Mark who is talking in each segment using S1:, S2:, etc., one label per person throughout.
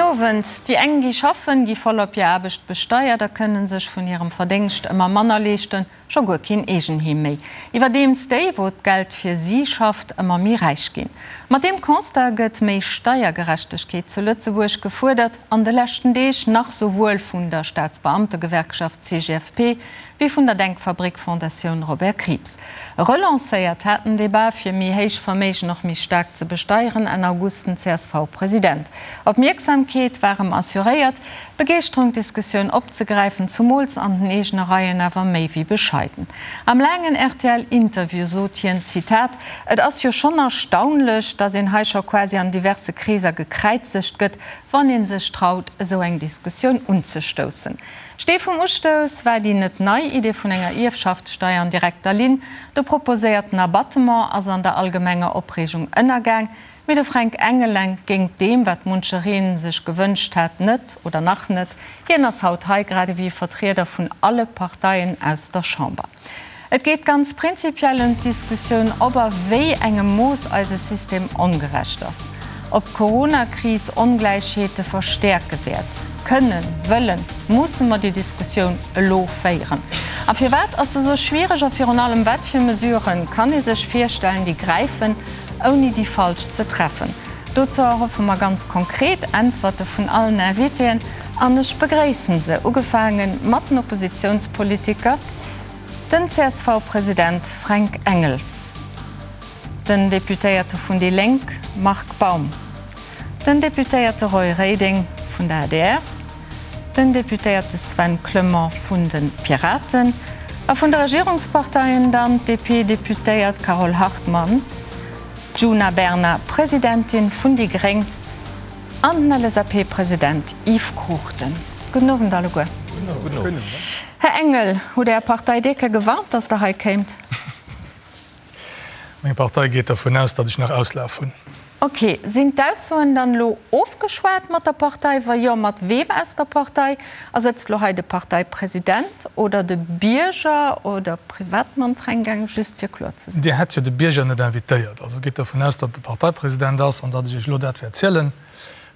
S1: Owend. Déi eng gi schaffen, gi voll op hir Aarbecht besteiert a kënne sech vun hirem Verdéngscht ëmmer manner leeschten, scho guer keen Eegenheem méi. Iwwerdeems déi, wou d'Geld fir si schafft, ëmmer méi räich ginn. Mat deem Constat gëtt méi Steiergerechtegkeet zu Lëtzebuerg gefuerdert, an de leschten Deeg nach souwuel vun der Staatsbeamtegewerkschaft CGFP wéi vun der Denkfabrik Fondatioun Robert Krieps. Relancéiert hat den Debat, fir méi héich Verméigen och méi staark ze besteieren, Enn August den CSV-President. Opmierksamkeet war em assuréiert, Begeeschterung d'Diskussioun opzegräifen, zumools an den eegene Reien awer méi wéi bescheiden. Am laangen RTL-Interview sot hien, Zitat, Et ass jo schonn erstaunlech, datt een hei scho quasi an diverse Kreeser gekräizegt gëtt, wann ee sech traut, esou eng Diskussioun unzestoussen. Stee vum Ustouss war déi net nei Idee vun enger Ierfschaftssteier an direkter Linn. De proposéierten Abattement ass an der allgemenger Opreegung ënnergaang, mee de Fränk Engel entgéingt deem, wat muncheree sech gewënscht hat, net oder nach net. Hien ass haut hei, grad ewéi Vertrieder vun alle Parteien aus der Chamber. Et geet ganz prinzipiell ëm d'Diskussioun, ob a wéi engem Mooss eise System ongerecht ass, ob d'Coronakris Ongläichheete verstäerke wäert. Kënnen, wëllen, musse mer déi Diskussioun elo féieren? A firwat ass se esou schwiereg? A virun allem, wat fir Mesurë kann ee sech virstellen, déi gräifen, ouni déi falsch ze treffen? Dozou erhoffe mer ganz konkret Äntwerte vun allen Invitéen an ech begréissen se, ugefaange mat den Oppositionspolitiker, Den CSV-President Fränk Engel, den Deputéierte vun déi Lénk Marc Baum, den Deputéierte Roy Reding vun der adr, den Deputéierte Sven Clement vun de Piraten a vun de Regierungsparteien dann d'DP-Deputéiert Carole Hartmann, d'Djuna Bernard, Presidentin vun déi gréng, An den LSAP-President Yves Cruchten. Gudden Owend alleguer. Gudden Owend. Här Engel, hutt Är Partei Deke gewarnt, datt Der hei kéimt?
S2: Meng Partei geet dervun aus, datt ech nach Auslaf hunn.
S1: Ok. Sinn d'Aussoen dann elo ofgeschwat mat der Partei? Wa jo, mat weem aus der Partei? A sëtzt elo hei de Parteipresident oder de Bierger oder Privatmann Fränk Engel, just fir kloer ze sinn?
S2: Dir hätt jo de Bierger net invitéiert. Also gitt dervun aus, datt et de Parteipresident ass an datt ech Iech elo dat wäert zielen,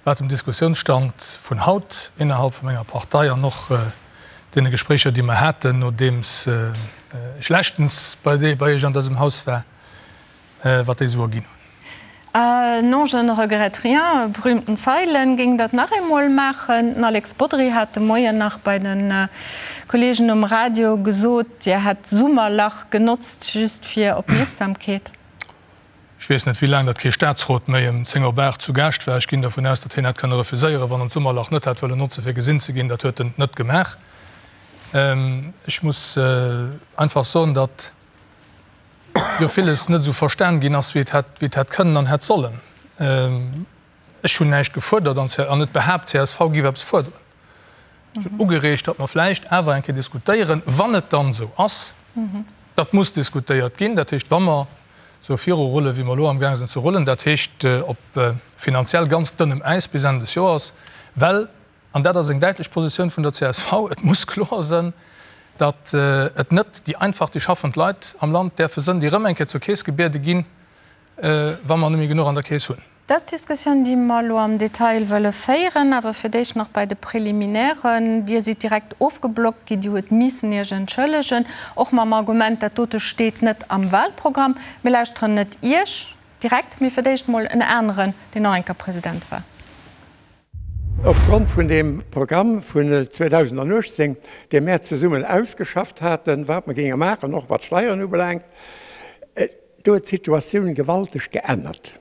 S2: wat dem Diskussiounsstand vun haut innerhalb vu menger Partei an och deene Gespréicher, déi mer haten, nodeems ech leschtens bei Iech an dësem Haus war, wat déi esou erginn hunn.
S1: Non, je ne regrette rien, berühmten Zeilen, géing dat nach eemol maachen. Den Alex Bodry hat de Moien nach bei de Kollegen um Radio gesot, Dir hätt d'Summerlach genotzt just fir Opmierksamkeet.
S2: Ech weess net, wéi laang datt kee Staatsrot méi ëm 10 op 8 zu Gaascht war. Ech ginn dervun aus, datt hien hätt kënne refuséieren, wann en d'Summerlach net hätt wëllen notze fir gesinn ze ginn. Dat huet en net gemaach. Ech muss einfach soen, datt jo villes net esou verstan ginn ass, wéi et hätt, wéi et hätt kënnen an hätt sollen. Ech hunn näischt gefuerdert an an net behaapt, csv géif eppes fuerderen. Ech hunn ugereegt, datt mer vläicht awer eng Kéier diskutéieren, wann et dann esou ass, datt muss diskutéiert ginn, dat heescht, wa mer esou virurullen, wéi mer elo amgaang sinn ze rullen, dat heescht op finanziell ganz dënnem Äis bis Enn des Joers, well, An dat ass eng däitlech Positioun vun der csv, Et muss kloer sënn, datt et net déi einfach, déi schaffend Leit am Land däerfe sënn, déi erëm eng Kéier zur Keess gebiede ginn, wa mer net méi genuch an der Keess hunn.
S1: Dat ass d'Diskussioun, déi mer elo am Detail wëlle féieren. Awer fir d'éischt nach bei de Préliminairen. Dir sidd direkt ofgeblockt ginn. Dir huet missen Iech entschëllegen, och mam Argument, dat dote steet net am Wahlprogramm. Mir lauschteren net Iech direkt, mee fir d'éischt emol en aneren, deen och eng Kéier President war.
S3: Opgrond vun deem Programm vun 2018, dee mär zesummen ausgeschafft haten, wat mer géinge maachen, och wat d'Steieren ubelaangt, do huet d'Situatioun gewalteg geännert.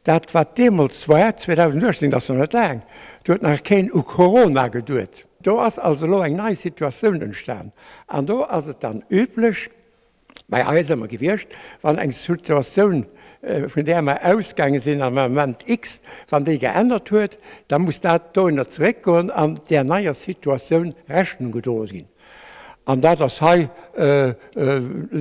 S3: Dat, wat deemools war, 2018, dat ass nach net laang, do huet nach keen u Corona geduet. Do ass also elo eng nei Situatioun entstan an do ass et dann üblech, bei eis ëmmer gewiescht, wann eng Situatioun, vun där mer ausgaange sinn am Ament X, wann déi geännert huet, da muss dat dohinner zeréckgoen an där neier Situatioun Rechnung gedroe ginn. An dat ass hei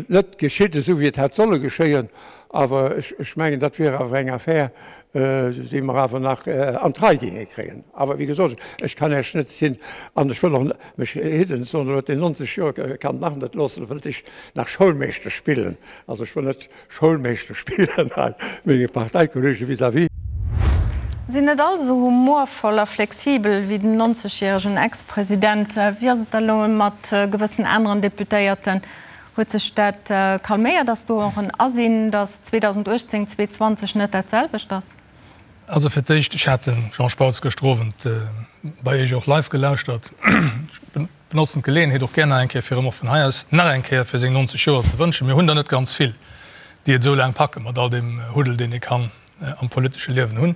S3: net geschitt, esou wéi et hätt solle geschéien. Awer ech mengen, dat wier awer eng Affär, déi mer awer nach an d'Rei géinge kréien. Awer wéi gesot, ech kann Iech net sinn an ech wëll och mech hidden, soen elo huet deen 90 Joer, kann nach net loossen, wëllt ech nach Schoulmeeschter spillen. Also ech wëll net Schoulmeeschter spillen hei menge Parteikollege vis-à-vis.
S1: Sinn. sinn net all esou humorvoll a flexibel wéi den 90 järegen Ex-President. Wéi ass et da elo mat gewëssen aneren Deputéierten? Huet sech dat calméiert? Ass do och en Asinn, datt 2018, 2020 net dat selwecht ass?
S2: Also fir d'éischt, ech hat de Jean Spautz gëschter Owend bei Iech och live gelauschtert. Ech benotzen d'Geleeënheet och gär nach eng Kéier, fir em och vun hei aus nach eng Kéier fir seng 90 Joer ze wënschen. Mir hunn der net ganz vill, déi et esou laang packe mat all deem Huddel, deen ee kann am politesche Liewen hunn.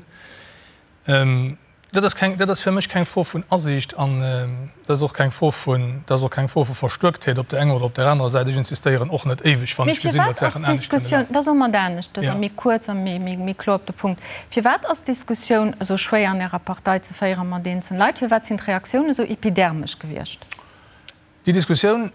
S2: Dat ass keng, dat ass fir mech keng Fro vun Asiicht an dat ass och keng Fro vun, dat ass och keng Fro vu Verstuerktheet op der enger oder op der anerer Säit. Ech insistéieren och net éiweg, wann
S1: Mee
S2: ech gesinn,
S1: firwat
S2: datt
S1: ass
S2: Saachen anescht kënne
S1: d'Diskussioun,
S2: lafen.
S1: da soe mer et aneschters a
S2: Ja.
S1: méi kuerz a méi, méi, méi kloer op de Punkt, Firwat ass d'Diskussioun esou schwéier an Ärer Partei ze féiere mat eenzelne Leit? Firwat sinn d'Reaktiounen esou epidermesch gewiescht?
S2: Déi Diskussioun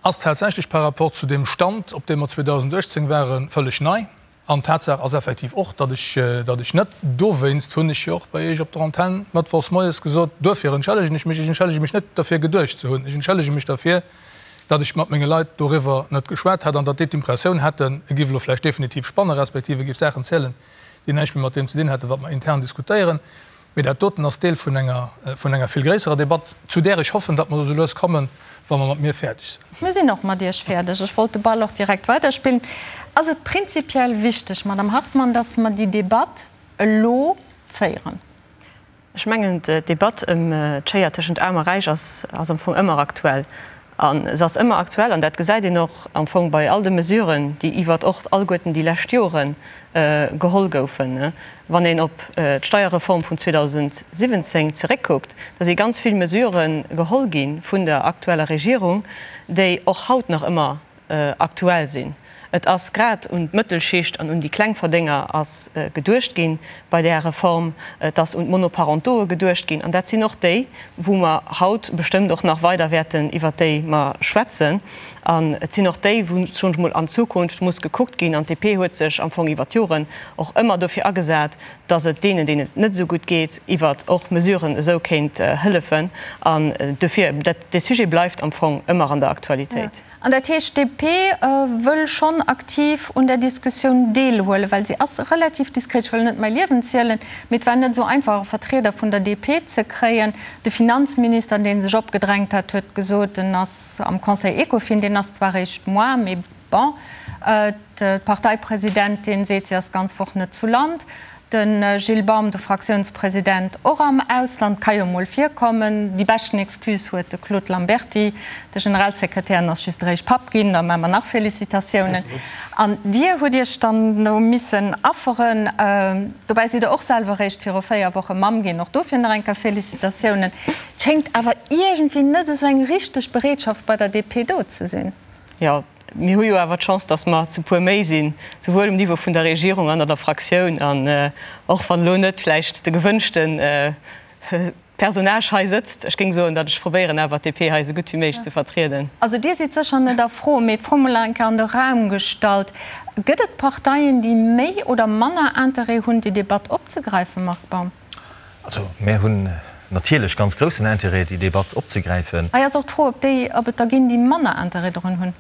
S2: ass tatsächlech par rapport zu deem Stand, op deem mer 2018 waren, vëlleg nei. An Tatsaach ass effektiv och, datt ech, datt ech net, dowéinst hunn ech jo och bei Iech op der Antenn mëttwochs moies gesot, duerfir entschëllegen ech mech, ech entschëllege mech net derfir geduecht ze hunn, ech entschëllege mech derfir, datt ech mat menge Leit doriwwer net geschwat hätt an datt déi d'Impressioun hätten, e giff elo vläicht definitiv spannen, respektiv e giff Saachen zielen, déi näischt méi mat deem ze dinn hätten, wat mer intern diskutéieren. Mee dat doten ass Deel vun enger, vun enger vill gréisserer Debatt, zu där ech hoffen, datt mer esou lues kommen, wa mer mat mir fäerdeg sinn.
S1: Mir sinn och mat Iech fäerdeg. Ech wollt de Ball och direkt weiderspillen. Ass et prinzipiell wichteg, Madame Hartmann, datt mer déi Debatt elo féieren?
S4: Ech mengen, d'Debatt ëm d'Schéier tëschent Aarm a Räich ass am Fong ëmmer aktuell. A se ass ëmmer aktuell, an dat gesäit een och am Fong bei all de Mesuren, déi iwwert och alleguerten déi lescht Jore geholl goufen. Wann een op d'Steierreform vun 2017 zeréckkuckt, da si ganz vill Mesurë geholl gi vun der aktueller Regierung, déi och haut nach ëmmer aktuell sinn. Et ass grad un d'Mëttelschicht an un déi Klengverdénger ass geduecht gi bei där Reform. Et ass un d'Monoparentoe geduecht ginn. An dat sinn och déi, wou mer haut bestëmmt och nach weider wäerten iwwert déi mer schwätzen. An et sinn och déi, wou, soen ech mol, an Zukunft muss gekuckt ginn. An d'DP huet sech am Fong iwwert d'Joren och ëmmer dofir agesat, dass et deenen, deenen et net esou gutt geet, iwwert och Mesuren esou kéint hëllefen. An dofir, dat, dee Sujet bleift am Fong ëmmer an der Aktualitéit.
S1: An dat heescht, d'DP wëll schonn aktiv un där Diskussioun deelhuelen, well si ass relativ diskret. Ech wëll net mäi Liewen zielen, mee et war net esou einfach, e Vertrieder vun der DP ze kréien. De Finanzminister, dee sech opgedrängt hat, huet gesot, en ass am Conseil Ecofin, deen ass zwar eréischt moar, mee bon. D'Parteipresidentin seet, si ass d'ganz Woch net zu Land. De Gilles Baum, de Fraktiounspresident, och am Ausland, ka jo mol virkommen. Déi beschten Excuse huet de Claude Lamberty, de Generalsekretär, en ass just eréischt Papp ginn, da maache mer nach Félicitatiounen. An Dir hutt Iech dann do missen afferen. Dobäi sidd Der och selwer eréischt viru 4 Woche Mamm ginn, och dofir nach eng Kéier Félicitatiounen. Et schéngt awer iergendwéi net esou eng richteg Bereetschaft bei der DP do ze sinn.
S4: Jo, Mir hu jo awer d'Chance, datt mer zu puer méi sinn, souwuel um Niveau vun der Regierung an an der Fraktioun. An och wann elo net vläicht de gewënschte Personnage hei sëtzt, ech géing soen, datt ech probéieren awer d'DP hei esou gutt wéi méiglech ze vertrieden.
S1: Also Dir sidd sécher net a Fro, mee d'Fro mol eng Kéier an de Raum gestallt, Gëtt et Parteien, déi méi oder manner Interêt hunn, déi Debatt opzegräifen, Marc Baum?
S5: Also mär hunn natierlech ganz groussen Intérêt, déi Debatt opzegräifen.
S1: Hei ass och d'Fro, ob déi, ob et der ginn, déi manner Intérêt drun hunn.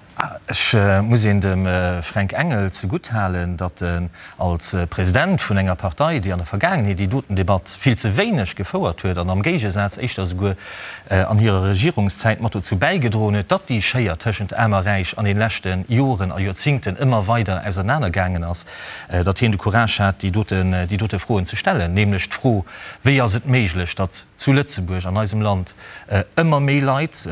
S5: Ech muss een dem Fränk Engel zegutt halen, datt en als President vun enger Partei, déi an der Vergaangenheet déi doten Debatt vill ze wéineg gefouert huet an am Géigesaz éischter esouguer an hirer Regierungszäit mat dozou bäigedroen huet, datt déi Schéier tëschent Aarm a Räich an de leschte Joren a Joerzingten ëmmer weider ausernanergaangen ass, datt hien de Courage hat, déi doten, déi dote Froen ze stellen, nämlech d'Fro, Wéi ass et méiglech, datt zu Lëtzebuerg, an eisem Land, ëmmer méi Leit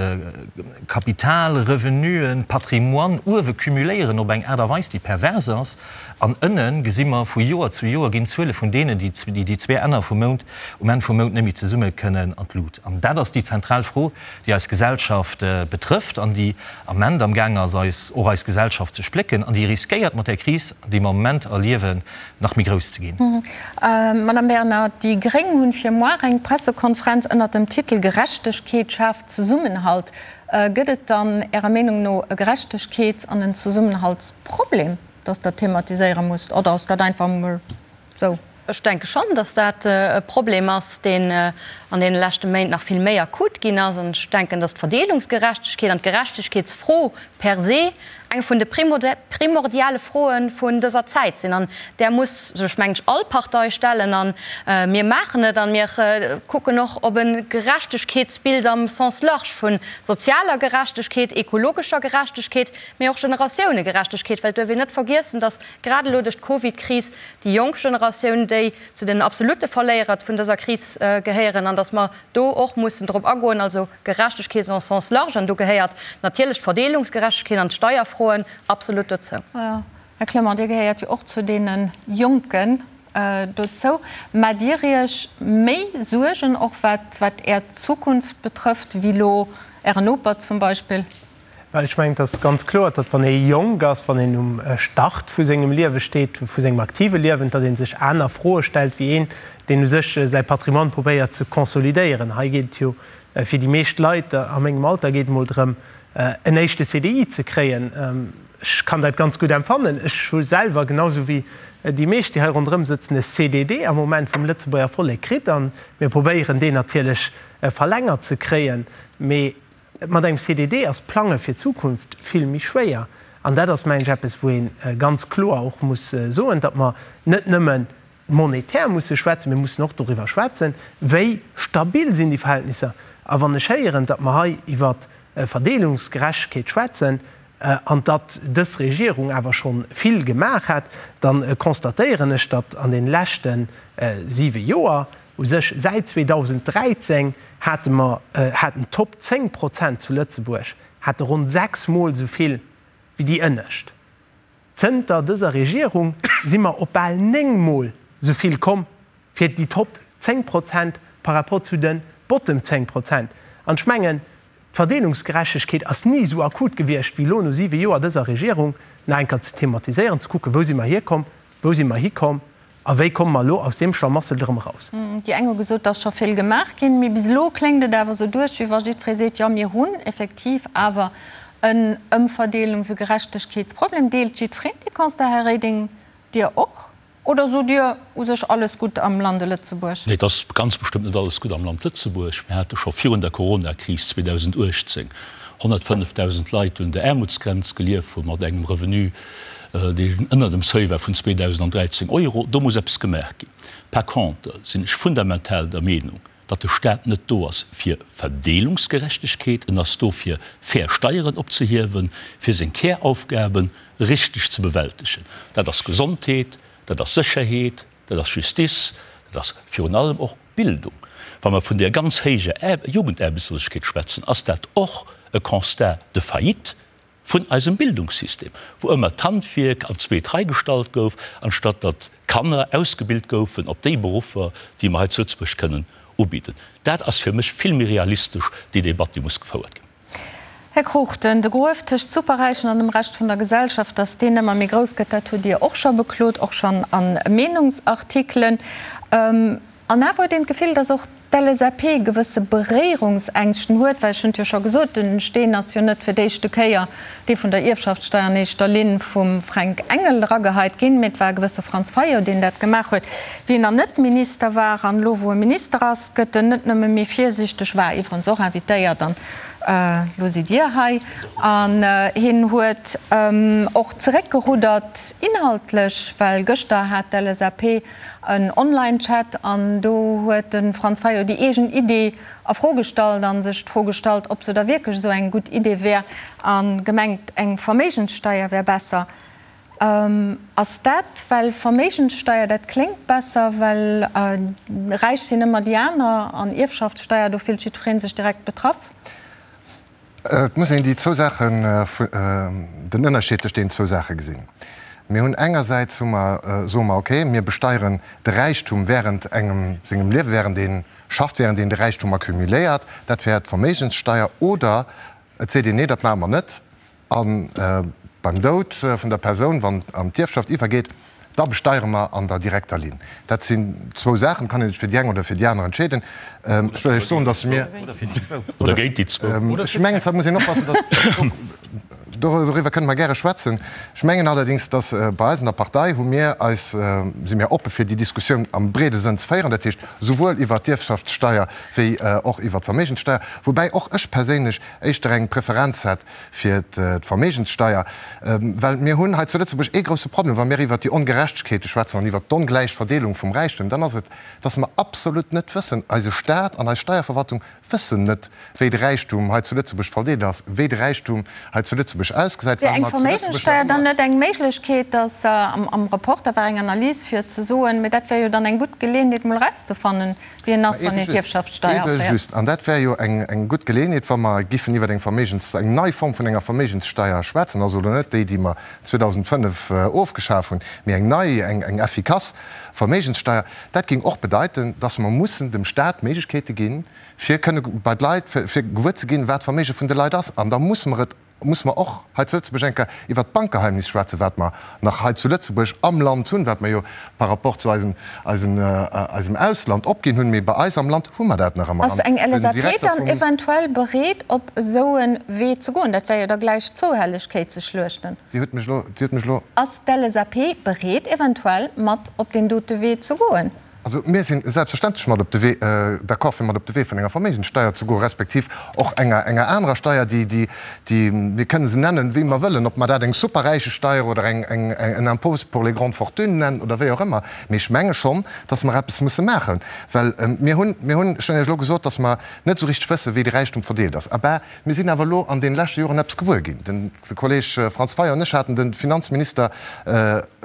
S5: Kapital, Revenuen, Patrimoine uewe cumuléieren op eng Aart a Weis, déi pervers ass, an ënne gesi mer vu Joer zu Joer ginn d'Zuele vun deenen, déi déi zwee Enner vum Mount um Enn vum Mount net méi zesumme kënnen, an d'Lut. An dat ass déi zentral Fro, déi eis Gesellschaft betrëfft an déi am Ament am Gaang ass, eis, och eis Gesellschaft ze splécken an déi riskéiert mat där Kris, déi mer am Moment erliewen, nach méi grouss ze ginn.
S1: Madame Bernard, déi gréng hunn fir moar eng Pressekonferenz ënnert dem Titel Gerechtegkeet schaaft Zesummenhalt. Gëtt et dann Ärer Meenung no e Gerechtegkeets an en Zesummenhaltsproblem, datt Der thematiséiere musst, oder ass dat einfach emol sou?
S6: Ech denke schonn, datt dat e Problem ass, deen an deene leschte Méint nach vill méi akut ginn ass. An ech denken, datt d'Verdeelungsgerechtegkeet an d'Gerechtegkeetsfro per se. eng vun de primordiale Froe vun dëser Zäit sinn. An där muss sech, mengen ech, all Partei stellen. A mir maachen et a mir kucken och op e Gerechtegkeetsbild am Sens large vu sozialer Gerechtegkeet, ekologescher Gerechtegkeet, mee och Generatiounegerechtegkeet, well et duerf een net vergiessen, datt grad elo duerch d'Covidkris déi jonk Generatioun déi zu den absolute Verléierer vun dëser Kris gehéieren an datt mer do och mussen drop agoen, also Gerechtegkeet en sens large, an do gehéiert natierlech d'Verdeelungsgerechtegkeet an d'Steierfroen absolut dozou.
S1: Här Clement, Dir gehéiert jo och zu deene Jonken dozou. Maacht Dir Iech méi Suergen, och wat Är Zukunft betrëfft, wéi elo Ären Noper zum Beispill?
S7: Well ech mengen, et ass ganz kloer, datt wann ee jonk ass, wann een um Start vu sengem Liewe steet, vu sengem aktive Liewen, datt ee sech aner Froe stellt wéi een, deen u sech säi Patrimoine probéiert ze consolidéieren. Hei geet et jo fir déi meescht Leit a mengem Alter geet et mol drëm, en éischte CDI ze kréien. Ech kann dat ganz gutt empfannen. Ech hu selwer, genau esou wéi déi meescht, déi hei ronderëm sëtzen, e CDD am Moment vum Lëtzebuerger Vollek kritt a mir probéieren deen natierlech verlängert ze kréien. Mee Mat engem CDD ass d'Plange fir d'Zukunft vill méi schwéier. An dat ass, mengen ech, eppes, wou ee ganz kloer och muss soen, datt mer net nëmme monetär musse schwätzen, mir mussen och doriwwer schwätzen, wéi stabil sinn déi Verhältnisser. A wann ech héieren, datt mer hei iwwer Verdeelungsgerechtegkeet schwätzen an datt dës Regierung awer scho vill gemaach hätt, da constatéieren ech, datt an de leschte siwe Joer, U sech säit 2013 hate mer, haten d'Top 10 Prozent zu Lëtzebuerg hate ronn 6 Mol esou vill wéi déi ënnescht. Zënter dëser Regierung si mer op bal 9 Mol esou vill komm fir déi Top 10 Prozent par rapport zu de Bottom 10 Prozent. An ech mengen, d'Verdeelungsgerechtegkeet ass ni esou akut gewiescht wéi elo no 7 Joer dëser Regierung, nach eng Kéier ze thematiséieren, ze kucken, wou si mer hierkomm, wou si mer hikomm A wéi komme mer elo aus deem Schlamassel erëm eraus?
S1: Déi eng hu gesot, et ass scho vill gemaach ginn, mee bis elo kléngt et awer esou duerch, wéi wa jiddweree seet, jo mir hunn effektiv awer en Ëmverdeelungs e Gerechtegkeetsproblem. Deelt jiddwereen dee Constat, Här Reding, Dir och? Oder sot Dir u sech alles gutt am Lande Lëtzebuerg?
S8: Nee, et ass ganz bestëmmt net alles gutt am Land Lëtzebuerg. Mir hate scho virun der Coronakris 2018 105.000 Leit, déi un der Aarmutsgrenz gelieft hu mat engem Revenu, deen ënner dem Seuil war vun 2.013 Euro. Do muss eppes gemaach ginn. Par contre sinn ech fundamental der Meenung, datt de Stat net do ass fir Verdeelungsgerechtegkeet, en ass do fir fair Steieren opzehiewen, fir seng Käraufgabe richteg ze bewältegen. Dat ass Gesondheet, dat ass Sécherheet, dat ass Justice, dat ass virun allem och Bildung. Wa mer vun där ganz héijer Jugendaarbechtslosegkeet schwätzen, ass dat och e Constat de faillite vun eisem Bildungssystem, wou ëmmer d'Handwierk an d'zweet Rei gestallt gouf, anstatt datt d'Kanner ausgebilt goufen op déi Beruffer, déi mer hei zu Lëtzebuerg kënnen ubidden. Dat ass fir mech vill méi realistesch, déi Debatt, déi muss gefouert ginn.
S1: Här Cruchten, de Gruef tëscht Superräichen an dem Rescht vun der Gesellschaft, datt deen ëmmer méi grouss gëtt, dat hutt Dir och scho beklot, och schonn a Meenungsartikelen. An awer huet een d'Gefill, datt och d'LSAP gewësse Beréierungsängschten huet, well ech hunn et jo scho gesot, den Steen ass jo net fir d'éischte Kéier dee vun der Ierfschaftssteier an éischter Linn vum Fränk Engel erageheit ginn, mee et war e gewësse Franz Fayot, deen dat gemaach huet, wéi en nach net Minister war. An elo, wou e Minister ass, gëtt en net nëmme méi virsiichteg, war iwwerens och invitéiert an elo sidd Dir hei, an hien huet och zeréckgeruddert inhaltlech, well gëschter hat d'LSAP en Online-Chat an do huet de Franz Fayot déi eegen Idee a Fro gestallt a sech d'Fro gestallt, ob se da wierklech esou eng gutt Idee wär a gemengt, eng Verméigenssteier wär besser. Ass dat, well Verméigenssteier, dat kléngt besser, well räich sinn ëmmer déi aner an Ierfschaftssteier, do fillt jiddweree sech direkt betraff?
S9: Et muss een déi zwou Saachen, den Ënnerscheed tëscht deenen zwou Saache gesinn. Mir hunn engersäits hu mer, soe mer, okay, mir besteieren de Räichtum während engem sengem Liewen, während ee schafft, während een de Räichtum accumuléiert, dat wär d'Verméigenssteier, oder et seet een, nee, dat maache mer net, a beim Doud vun der Persoun, wann an d'Ierfschaft iwwergeet. Da besteiere mer an der direkter Linn. Dat sinn zwou Saachen, et kann ee sech fir déi eng oder fir déi aner entscheeden. Ech wëll Iech soen, datt mir.
S8: Oder géint déi zwou.
S9: Ech mengen, da muss een oppassen, datt. Doriwwer kënne mer gäre schwätzen. Ech mengen allerdéngs, datt bei eis an der Partei hu mir eis, si mir oppe fir déi Diskussioun am breede Sënn ze féieren, dat heescht souwuel iwwert d'Ierfschaftssteier wéi och iwwert d'Verméigenssteier, woubäi och ech perséinlech éischter eng Preferenz hätt fir d'Verméigenssteier, well mir hunn hei zu Lëtzebuerg ee grousse Problem, wa mir iwwert déi Ongerechtegkeete schwätzen an iwwert d'ongläich Verdeelung vum Räichtum, dann ass et, dass mer absolut net wëssen, eise Stat an eis Steierverwaltung wëssen net, wéi de Räichtum hei zu Lëtzebuerg verdeelt ass, wéi de Räichtum hei zu Lëtzebuerg ausgesäit,
S1: Wär
S9: well
S1: eng
S9: mer zu Lëtzebuerg nach
S1: Verméigenssteier dann
S9: ëmmer.
S1: net eng Méiglechkeet, dass am Reporter war eng Analys fir ze soen, mee dat wär jo dann eng gutt Geleeënheet mol erauszefannen, wéi en
S9: Ma
S1: ass, wann
S9: ebe
S1: een
S9: just,
S1: d'Ierfschaftssteier
S9: ebe
S1: aféiert.
S9: just. An dat wär jo eng, eng gutt Geleeënheet, wa mer giffen iwwer eng Verméigens, eng nei Form vun enger Verméigenssteier schwätzen, also elo net déi, déi mer 2005 ofgeschaf hunn, mee eng nei, eng, eng effikass Verméigenssteier. Dat géing och bedeiten, dass mer mussen dem Stat d'Méiglechkeete ginn, fir kënne bei d'Leit, fir gewuer ze ginn, wat d'Verméige vun de Leit ass. An da musse mer et, musse mer och hei zu Lëtzebuerg eng Kéier iwwert d'Bankgeheimnis schwätzen, wat mer nach hei zu Lëtzebuerg am Land hunn, wat mer jo par rapport zu eisem, eisem, eisem Ausland opginn hunn, mee bei eis am Land hu mer dat nach ëmmer.
S1: Ass eng
S9: An den
S1: LSAP
S9: Direkter
S1: dann
S9: vum.
S1: eventuell bereet, op esou e Wee ze goen? Dat wär jo da gläich zwou Hellegkeet ze schluechten.
S9: Dir hutt mech elo, Dir hutt mech elo.
S1: Ass d'LSAP bereet, eventuell mat op deen dote Wee ze goen?
S9: Also mir si selbstverständlech mat op de Wee, d'accord fir mat op de Wee vun enger Verméigenssteier ze goen, respektiv och enger, enger anerer Steier, déi, déi, déi, mir kënnen se nennen, wéi mer wëllen, ob mer dat eng Superräichesteier oder eng, eng, en Impôt pour les grandes fortunes nennen oder wéi och ëmmer. Mee ech menge schonn, dass mer eppes musse maachen, well mir hunn, mir hunn, ech hunn Iech elo gesot, dass mer net esou richteg wëssen, wéi de Räichtum verdeelt ass. Abä mir sinn awer elo an deene leschte Joren eppes gewuer ginn. Den. De Kolleg Franz Fayot an ech haten de Finanzminister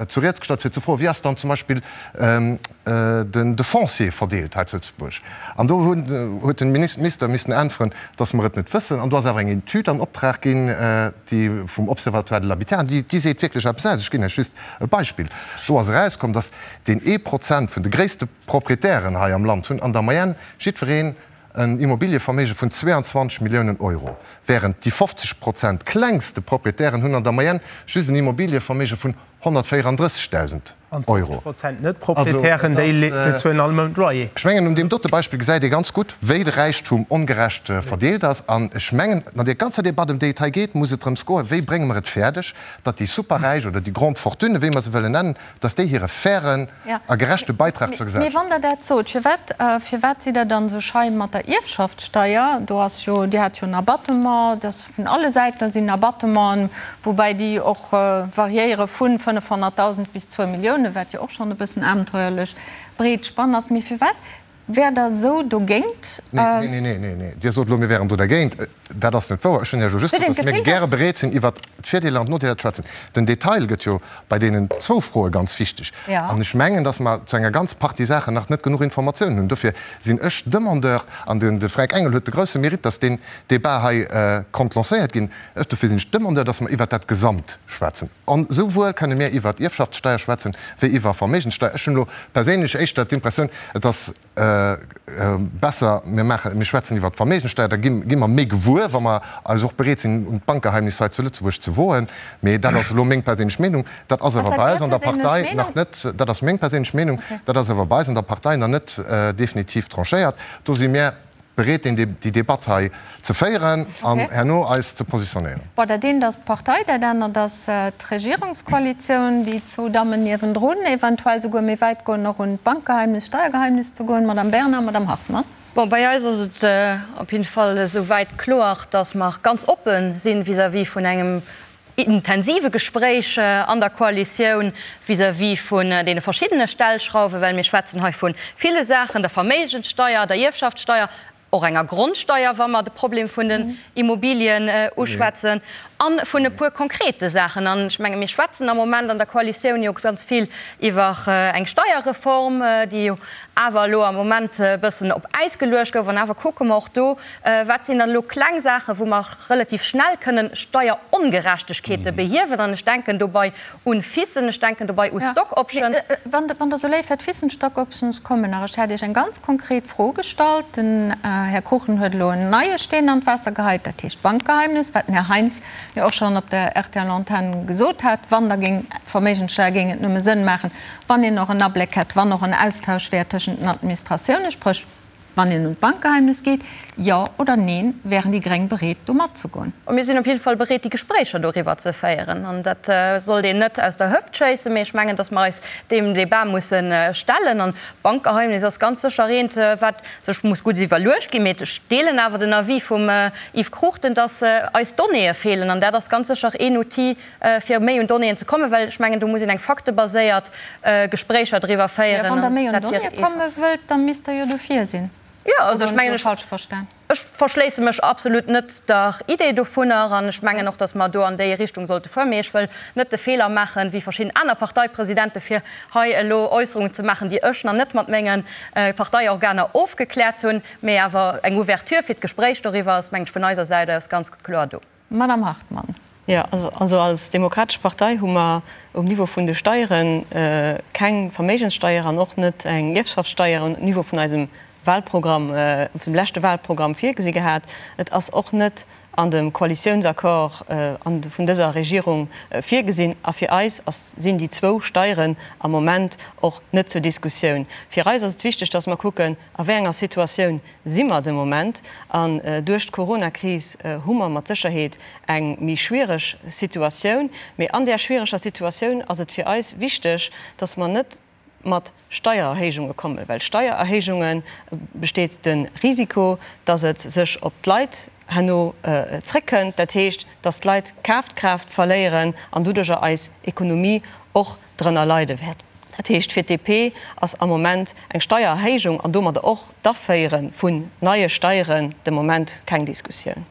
S9: zu Rieds gestallt, fir ze froen, wéi ass dann zum Beispill de Foncier verdeelt hei zu Lëtzebuerg. An do huet de Minister missen äntweren, datt mer et net wëssen. An do ass awer eng Etüd an Optrag ginn, déi vum Observatoire de l'habitat, an déi seet wierklech eppes aus. Ech ginn Iech just e Beispill. Do ass erauskomm, datt deen ee Prozent vun de gréisste Proprietären hei am Land hunn an der Moyenne jiddwereen en Immobilieverméige vun 22 Milliounen Euro, wärend déi 50 Prozent klengste Proprietären hunn an der Moyenne just en Immobilieverméige vun 134.000
S7: An
S9: Euro.
S7: 50 Prozent Net-Proprietären, déi bezuelen all Mount Loyer.
S9: Ech mengen, un deem dote Beispill gesäit ee ganz gutt, wéi de Räichtum ongerecht verdeelt ass. An ech mengen, an där ganzer Debatt, ëm déi et hei geet, muss et drëms goen, Wéi brénge mer et fäerdeg, datt déi Superräich oder déi Grandes Fortunes, wéi mer se wëllen nennen, datt déi hire fairen a gerechte Beitrag zur
S1: Mee
S9: Gesellschaft.
S1: wann Der dat sot, firwat, firwat sidd Der dann esou schei mat der Ierfschaftssteier? Do ass jo, Dir hat jo en Abattement, dat vun alle Säiten sinn Abattementen, woubäi déi och variéiere vu 500.000 bis zwou Milliounen, wat jo och schonn e bëssen abenteuerlech breet Spann ass. Mee firwat wäert Der esou dogéint?
S9: Nee, nee, nee, nee, nee. Dir sot elo, mir wären do dergéint. Dat ass net wouer. Ech hunn Iech elo just gesot, dass mir gäre bereet sinn, iwwert d'Virdeeler an d'Nodeeler ze schwätzen. Den Detail gëtt jo bei deenen zwou Froe ganz wichteg. An ech mengen, dass mer zu enger ganz Partie Saachen nach net genuch Informatiounen hunn. Dofir sinn ech Demandeur, an de Fränk Engel huet de grousse Mérite, dass deen Débat hei konnt lancéiert ginn, ech, dofir sinn ech Demandeur, dass mer iwwert dat Gesamt schwätzen. An esouwuel kënne mir iwwert Ierfschaftssteier schwätzen, wéi iwwer Verméigenssteier. Ech hunn elo perséinlech éischter d'Impressioun, et ass, Besser, mir maachen, mir schwätzen iwwert d'Verméigenssteuer, da gi mer méi gewuer, wa mer eis och bereet sinn, un d'Bankgeheimnis hei zu Lëtzebuerg ze woen. Mee dat ass elo meng perséinlech Meenung. Dat ass awer bei eis an der Partei nach net, dat ass meng perséinlech Meenung, dat ass awer bei eis an der Partei nach net definitiv tranchéiert. Do si mir bereet, deen, déi Debatt hei ze féieren an herno eis ze positionéieren.
S1: Bon, dat eent ass d'Partei, dat anert ass d'Regierungskoalitioun, déi zwou Dammen niewendrun, eventuell souguer méi wäit goen, och un d'Bankgeheimnis, Steiergeheimnis ze goen, Madame Bernard, Madame Hartmann.
S6: Bon, bei eis ass et op jidde Fall esou wäit kloer, dass mer ganz oppe si vis-à-vis vun engem intensive Gespréich an der Koalitioun vis-à-vis vun deene verschiddene Stellschrauwen, well mir schwätzen hei vu ville Saachen, der Verméigenssteier, der Ierfschaftssteier, och enger Grondsteier, wa mer de Problem vun den Immobilien uschwätzen, a vun e puer konkrete Saachen. An ech menge mir schwätzen am Moment an der Koalitioun jo ganz vill iwwer eng Steierreform, déi jo awer elo am Moment e bëssen op Äis geluecht gouf. An awer kucke mer och do, Wat sinn dann elo kleng Saachen, wou mer relativ schnell kënnen Steierongerechtegkeete behiewen? An ech denken dobei un FISen, ech denken dobei u Stock Options.
S1: Wann Der esou léif wäert, FISen, Stock Options kommen nach. Ech hat Iech eng ganz konkret Fro gestallt. Den Här Kuchen huet elo en neie Steen an d'Waasser geheit, dat heescht Bankgeheimnis, wat den Här Heintz. Jo och schonn op der RTL-Antenn gesot hat, wann da géing Verméigenssteier géing et nëmme Sënn maachen, wann een och en Abléck hätt, wann och en Austausch wär tëschent den Administratiounen, spréch wann een un d'Bankgeheimnis geet. Jo oder neen, wären déi Gréng bereet do matzegoen?
S6: Mir sinn op jidde Fall bereet déi Gespréicher doriwwer ze féieren. An dat sollt een net aus der Hëft schéissen, mee ech mengen, datt mer eis deem Débat musse stellen. An d'Bankgeheimnis ass ganz sécher eent, wat sech muss gutt iwwerluecht ginn. Mee ech deelen awer den Avis vum Yves Cruchten, dass eis Donnéeë feelen. An dat ass ganz sécher een Outil, fir méi un Donnéeën ze kommen, well ech mengen, do muss een eng faktebaséiert Gespréicher driwwer féieren.
S1: Mä wann Der méi un Donnéeë komme wëllt, da misst Der jo dofir sinn.
S6: Jo, also ech mengen, ech. Ech verschléisse mech absolut net der Idee dovunner an ech mengen och, datt mer do an déi Richtung sollte fueren. Mee ech wëll net de Feeler maachen, wéi verschidden aner Parteipresidente fir hei elo Äusserungen ze maachen, déi ech nach net mat menge Parteiorganer ofgekläert hunn. Mee awer eng Ouverture fir d'Gespréich doriwwer ass, mengen ech, vun eiser Säit aus ganz kloer do.
S1: Madame Hartmann.
S4: Jo, also als Demokratesch Partei hu mer um Niveau vun de Steiere keng Verméigenssteier an och net eng Ierfschaftssteier um Niveau vun eisem Wahlprogramm, vum leschte Wahlprogramm virgesi gehat. Et ass och net an dem Koalitiounsaccord vun dëser Regierung virgesinn. A fir eis ass, sinn déi zwou Steieren am Moment och net zur Diskussioun. Fir eis ass et wichteg, dass mer kucken, a wéi enger Situatioun si mer de Moment. An duerch d'Coronakris hu mer mat Sécherheet eng méi schwiereg Situatioun. Mee an där schwiereger Situatioun ass et fir eis wichteg, dass mer net mat Steiererhéijunge kommen, well Steiererhéijunge besteet de Risiko, dass et sech op d'Leit herno zréckkënnt, dat heescht, dass d'Leit Kafkraaft verléieren an doduerjer eis Ekonomie och drënner leide wäert. Dat heescht, fir d'DP ass am Moment eng Steiererhéijung an domadder och d'Aféiere vun neie Steieren de Moment keng Diskussioun.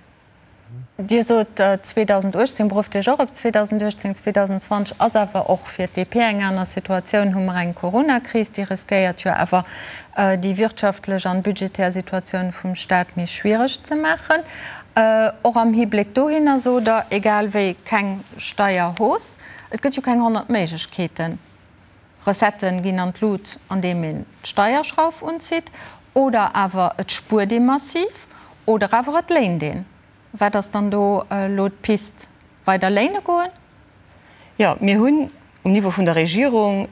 S1: Dir sot 2018, berufft Iech och op 2018. 2020 ass awer och fir d'DP eng aner Situatioun, hu mer eng Coronakris, déi riskéiert jo awer déi wirtschaftlech an budgetär Situatioun vum Staat méi schwiereg ze maachen. Och am Hibléck dohinner sot Der, egal wéi keng Steierhausse. Et gëtt jo keng 100 Méiglechkeeten. Recettë ginn an d'Lut andeem een d'Steierschrauf unzitt, oder awer et spuert ee massiv, oder awer et léint een. Wat ass dann do elo d'Pist? Weider léine goen?
S4: Jo, mir hunn um Niveau vun der Regierung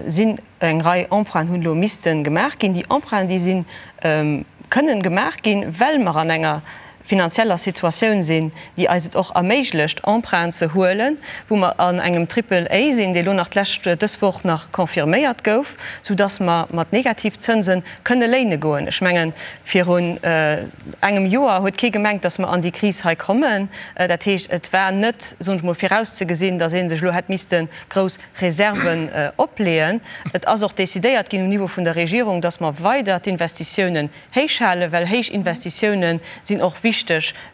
S4: sinn eng Rei Emprunten hunn elo misste gemaach ginn. Déi Emprunten, déi si kënnen gemaach ginn, well mer an enger finanzieller Situatioun sinn, déi eis et och erméiglecht, Emprunten ze huelen, wou mer an engem Triple A sinn, dee lo nach d'lescht, dës Woch nach confirméiert gouf, soudass mer mat Negativzënse kënne léine goen. Ech mengen, virun engem Joer huet kee gemengt, dass mer an déi Kris hei kommen. Dat heescht, et war net, soen ech mol, virauszegesinn, dass ee sech elo hätt misste grouss Reserven opleeën. Et ass och decidéiert ginn um Niveau vun der Regierung, dass mer weider d'Investitiounen héich halen, well héich Investitiounen sinn och wichteg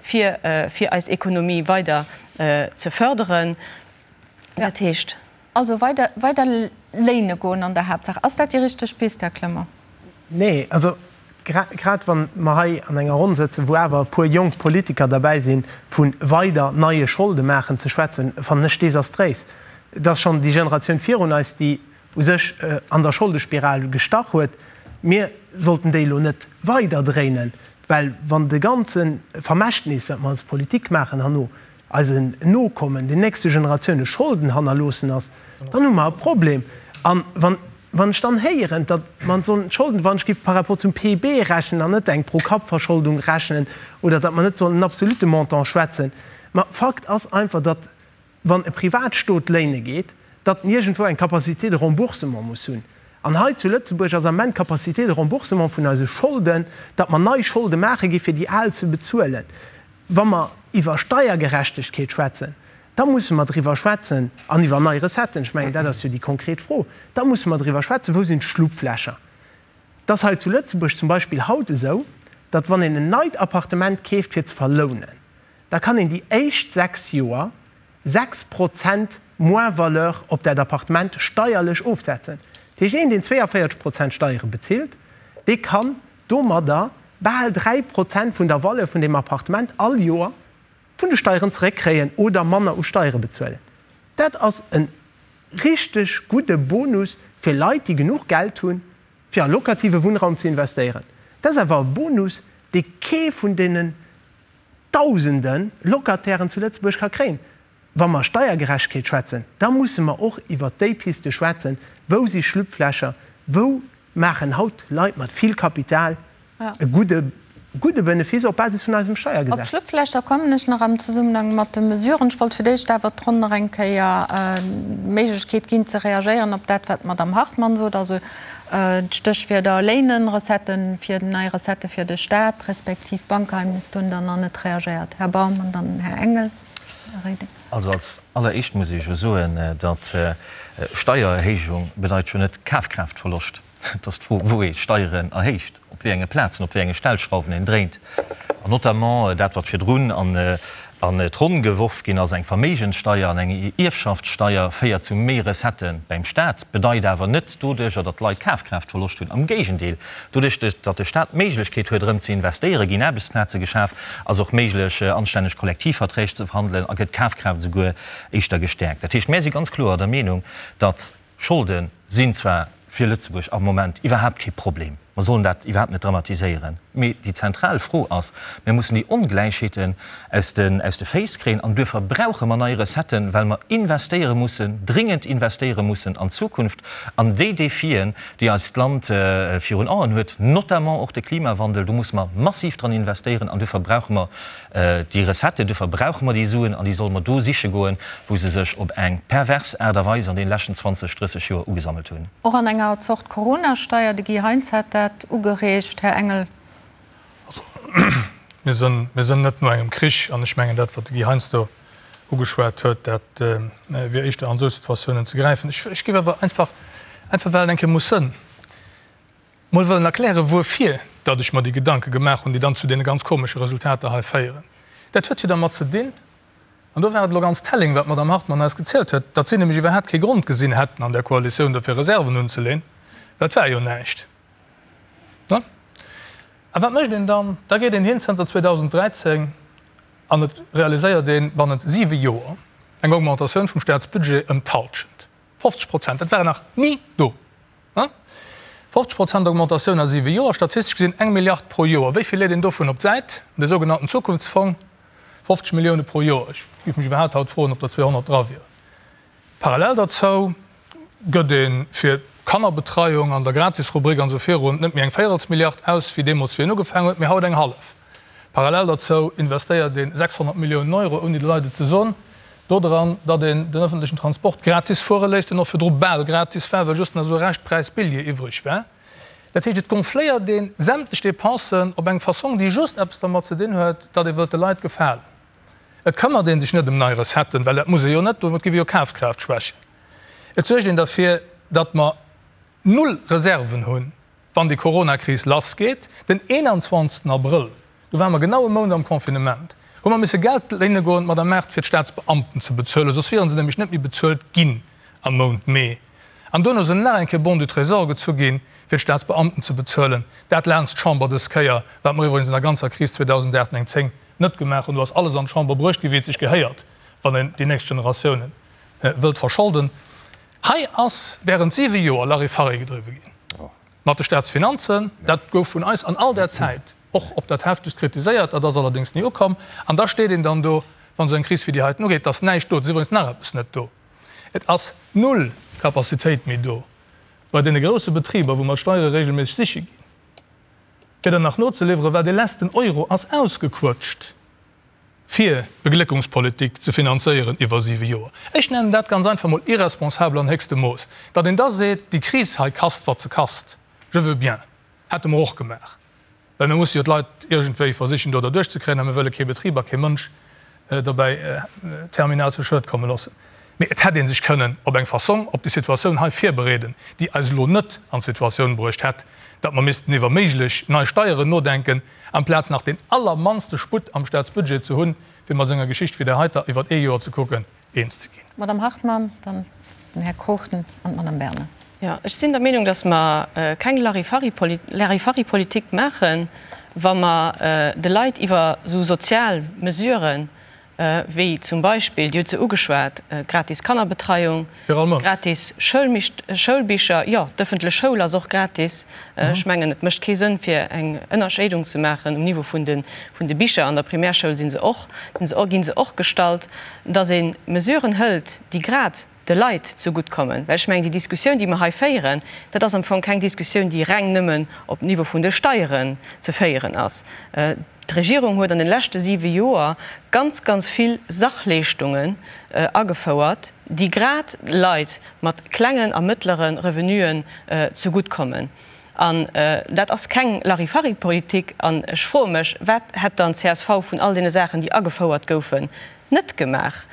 S4: fir fir eis Ekonomie weider ze förderen.
S1: Dat heescht. Also weider weider léine goen an der Haaptsaach. Ass dat déi richteg Pist, Här Clement?
S7: Nee, also grad wa mer hei an enger Ronn sëtzen, wou awer e puer jonk Politiker derbäi sinn, vu weider neie Scholde maachen ze schwätzen, fannen ech desastréis. Et ass schonn déi Generatioun virun eis, déi u sech an der Scholdespiral gestach huet. Mir sollten déi elo net weider dréinen, well wann de ganze Vermächtnis, wat mer als Politik maachen, herno eisen Nokommen, den nächste Generatioune Scholden hannerloossen ass, dann hu mer e Problem. A wann, wann ech dann héieren, datt mer sollen d'Scholden, wann ech géif par rapport zum PIB rechnen an net eng Pro-Kapp-Verscholdung rechnen oder datt mer net sollen en absolute Montant schwätzen, ma Fakt ass einfach, datt wann e Privatstot léine geet, datt en iergendwou eng Capacité de remboursement muss hunn. An hei zu Lëtzebuerg ass am Ament d'Capacité de remboursement vun eise Scholden, datt mer nei Scholde maache gi fir déi al ze bezuelen. Wa mer iwwer Steiergerechtegkeet schwätzen, da musse mer driwwer schwätzen, an iwwer nei Recetten, ech mengen dat ass jo déi konkret Fro, da musse mer driwwer schwätzen, wou sinn d'Schlupflächer. Et ass hei zu Lëtzebuerg zum Beispill haut esou, datt wann een en neit Appartement keeft fir ze verlounen, da kann een déi éischt 6 Joer 6 Prozent Moins-valeur op dat Appartement steierlech ofsetzen. Dat heescht, een, deen 42 Prozent Steiere bezilt, dee kann domadder bal 3 Prozent vun der Valeur vun deem Appartement all Joer vun de Steieren zeréckkréien oder manner u Steiere bezuelen. Dat ass e richteg gudde Bonus fir Leit, déi genuch Geld hunn, fir a locative Wunnraum ze investéieren. Dat ass awer e Bonus, dee kee vun deenen. Dausende Locatairen zu Lëtzebuerg ka kréien. Wa mer Steiergerechtegkeet schwätzen, da musse mer och iwwert déi Piste schwätzen, Wou si Schlupflächer? Wou maachen haut Leit mat vill Kapital e gudde gudde Benefice op Basis vun eisem
S1: Op
S7: Steiergesetz?
S1: d'Schlupflächer kommen ech nach am Zesummenhang mat de Mesuren. Ech wollt fir d'éischt awer d'Ronn nach eng Kéier d'Méiglechkeet ginn ze reagéieren op dat, wat d'Madame Hartmann sot, also d'Stéchwierder Léinen, Recetten fir, nei Recettë fir de Stat respektiv Bankgeheimnis. Do hunn Der nach net reagéiert, Här Baum, an dann Här Engel. Här Reding.
S5: Also als alleréischt muss ech jo soen, datt Steiererhéijung bedeit jo net Kafkraaftverloscht. Et ass d'Fro, wou ee Steieren erhéicht, op wéi enge Plazen, op wéi enge Stellschrauwen een dréint. An notamment dat, wat virdrun an d'Ronn geworf ginn ass, eng Verméigenssteier an eng Ierfschaftssteier, féiert zu méi Recettë beim Staat, bedeit awer net doduercher, datt d'Leit Kafkraaftverloscht hunn. Am Géigendeel, doduerch, datt de Staat d'Méiglechkeet huet, erëm ze investéieren, ginn Aarbechtsplaze geschaf, ass och méiglech, anstänneg Kollektivverträg ze verhandelen a gëtt d'Kafkraaft esouguer éischter gestäerkt. Dat heescht, mär si ganz kloer der Meenung, datt Scholde sinn zwar fir Lëtzebuerg am Moment iwwerhaapt kee Problem, mer sollen dat iwwerhaapt net dramatiséieren, mee déi zentral Fro ass, Mir mussen déi Ongläichheeten aus de aus de Féiss kréien an duerfir brauche mer nei Recetten, well mer investéiere mussen, dringend investéiere mussen an d'Zukunft, an déi Defien, déi eist Land virun Aen huet, notamment och de Klimawandel, do musse mer massiv dran investéieren an duerfir brauche mer Déi Recette, duerfir brauche mer déi Suen an déi solle mer do siche goen, wou se sech op eng pervers Aart a Weis an deene leschten 20, 30 Joer ugesammelt hunn.
S1: Och an enger Zort Coronasteier, de Guy Heintz hat dat ugereegt, Här Engel.
S2: Also, mir sënn, mir sënn net no engem Krich an ech mengen, dat, wat de Guy Heintz do ugeschwat huet, dat wier éischter an esou Situatiounen ze gräifen. Ech, ech géif awer einfach, einfach well et eng Kéier muss sënn, mol wëllen erklären, wuerfir datt ech mer déi Gedanke gemaach hunn, déi dann zu deene ganz komesche Resultater hei féieren. Dat huet jo dermat ze dinn, an do war et elo ganz telling, wat d'Madame Hartmann eis gezielt huet, datt si nämlech iwwerhaapt kee Grond gesinn hätten an der Koalitioun dofir Reserven unzeleen, well et war jo näischt. Ne? A wat mécht een dann? Da geet een hin zënter 2013 an et realiséiert ee bannent siwe Joer eng Augmentatioun vum Staatsbudget ëm d'Halschent, 50 Prozent. Dat war nach ni do. 50 Prozent Augmentatioun a siwe Joer, statistesch gesinn eng Milliard pro Joer. Wéi vill leet een dovun op d'Säit? An de sougenannten Zukunftsfong? 50 Millioune pro Joer. Ech géif mech iwwerhaapt haut froen, ob der 200 dra wieren. Parallel derzou gëtt ee fir d'Kannerbetreiung an der Gratisrubrik an esou virun net méi eng Véierelsmilliard aus, wéi deemools, wéi een ugefaangen huet, mee haut eng hallef. Parallel derzou investéiert ee 600 Milliounen Euro, ouni de Leit et ze soen, dodran, datt een den ëffentlechen Transport gratis fuere léisst, deen och virdru bal gratis war, well just nach esou e Reschtpräis Billjee iwwreg war. Dat heescht, et gonfléiert ee sämtlech Dépensen op eng Fassong, déi just eppes dermat ze dinn huet, datt ee wëllt de Leit gefalen. Et këmmert ee sech net ëm nei Recetten, well dat muss ee jo net, domat géif ee jo Kafkraaft schwächen. Et suergt een derfir, datt mer null Reserven hunn, wann déi Coronakris lassgeet, den 21. Abrëll, do ware mer genau e Mount am Confinement, hu mer misse Geld léine goen, d'Madame Mart, fir d'Staatsbeamten ze bezuelen, soss wiere se nämlech net méi bezuelt ginn am Mount Mee. An duerno sinn nach eng Kéier Bons du Trésor gezu ginn, fir d'Staatsbeamten ze bezuelen. Dat laanscht d'Chamber dës Kéier, wat mer iwwregens an der ganzer Kris 2008, 9, 10 net gemaach hunn. Do ass alles an d'Chamber bruecht ginn, wéi et sech gehéiert, wann een déi nächst Generatiounen wëllt verscholden. Hei ass während siwe Joer Larifari gedriwwe ginn mat de Staatsfinanzen. Dat gouf vun eis an all där Zäit och op dat Heftegst kritiséiert. Dat ass allerdéngs ni ukomm. An da steet een dann do, wann esou eng Kris wéi déi heiten ugeet, et ass näischt do. Et ass iwwregens nach eppes net do, Et ass null Capacitéit méi do bei deene grousse Betriber, wou mer d'Steiere regelméisseg siche ginn, fir der nach nozeliwweren, well dee letzten Euro ass ausgequëtscht. fir d'Begléckungspolitik ze finanzéieren iwwer siwe Joer. Ech nennen dat ganz einfach mol irresponsabel an héchstem Mooss. Datt een da seet, déi Kris hei kasst, wat se kasst, je veux bien, hätte mer och gemaach, well mir musse jo d'Leit iergendwéi versichen do derduerch ze kréien a mir wëlle kee Betrib a kee Mënsch dobäi terminal zu Schued komme loossen. Mee et hätt ee sech kënnen op eng Fassong op déi Situatioun hei virbereeden, déi eis elo net an d'Situatioun bruecht hätt, datt mer missten iwwer méiglech nei Steieren nodenken, amplaz nach deen allermannste Sputt am Staatsbudget ze hunn, fir mat esou enger Geschicht wéi där heiter iwwer ee Joer ze kucken, eens ze ginn.
S1: D'Madame Hartmann, dann den Här Cruchten an d'Madame Bernard.
S4: Jo, ech sinn der Meenung, datt mer keng Larifari-Politik maachen, wa mer de Leit iwwer esou sozial Mesuren. wéi zum Beispill, Dir hutt se ugeschwat, d'gratis Kannerbetreiung, gratis Schoulbicher, jo, d'ëffentlech Schoul ass och gratis. Ech mengen, et mécht kee Sënn, fir eng Ënnerscheidung ze maachen um Niveau vun de Bicher. An der Primärschoul si se och, gi se och gestallt, dass ee Mesuren hëlt, déi grad de Leit zegutt kommen. Well ech mengen, déi Diskussioun, déi mer hei féieren, dat ass am Fong keng Diskussioun, déi reng nëmmen op Niveau vun de Steieren ze féieren ass. D'Regierung huet an de leschte siwe Joer ganz, ganz vill Sachleeschtungen agefouert, déi grad Leit mat klengen a mëttlere Revenuen zegutt kommen. An dat ass keng Larifari-Politik. An ech froe mech, Wat hätt dann csv vun all deene Saachen, déi agefouert goufen, net gemaach?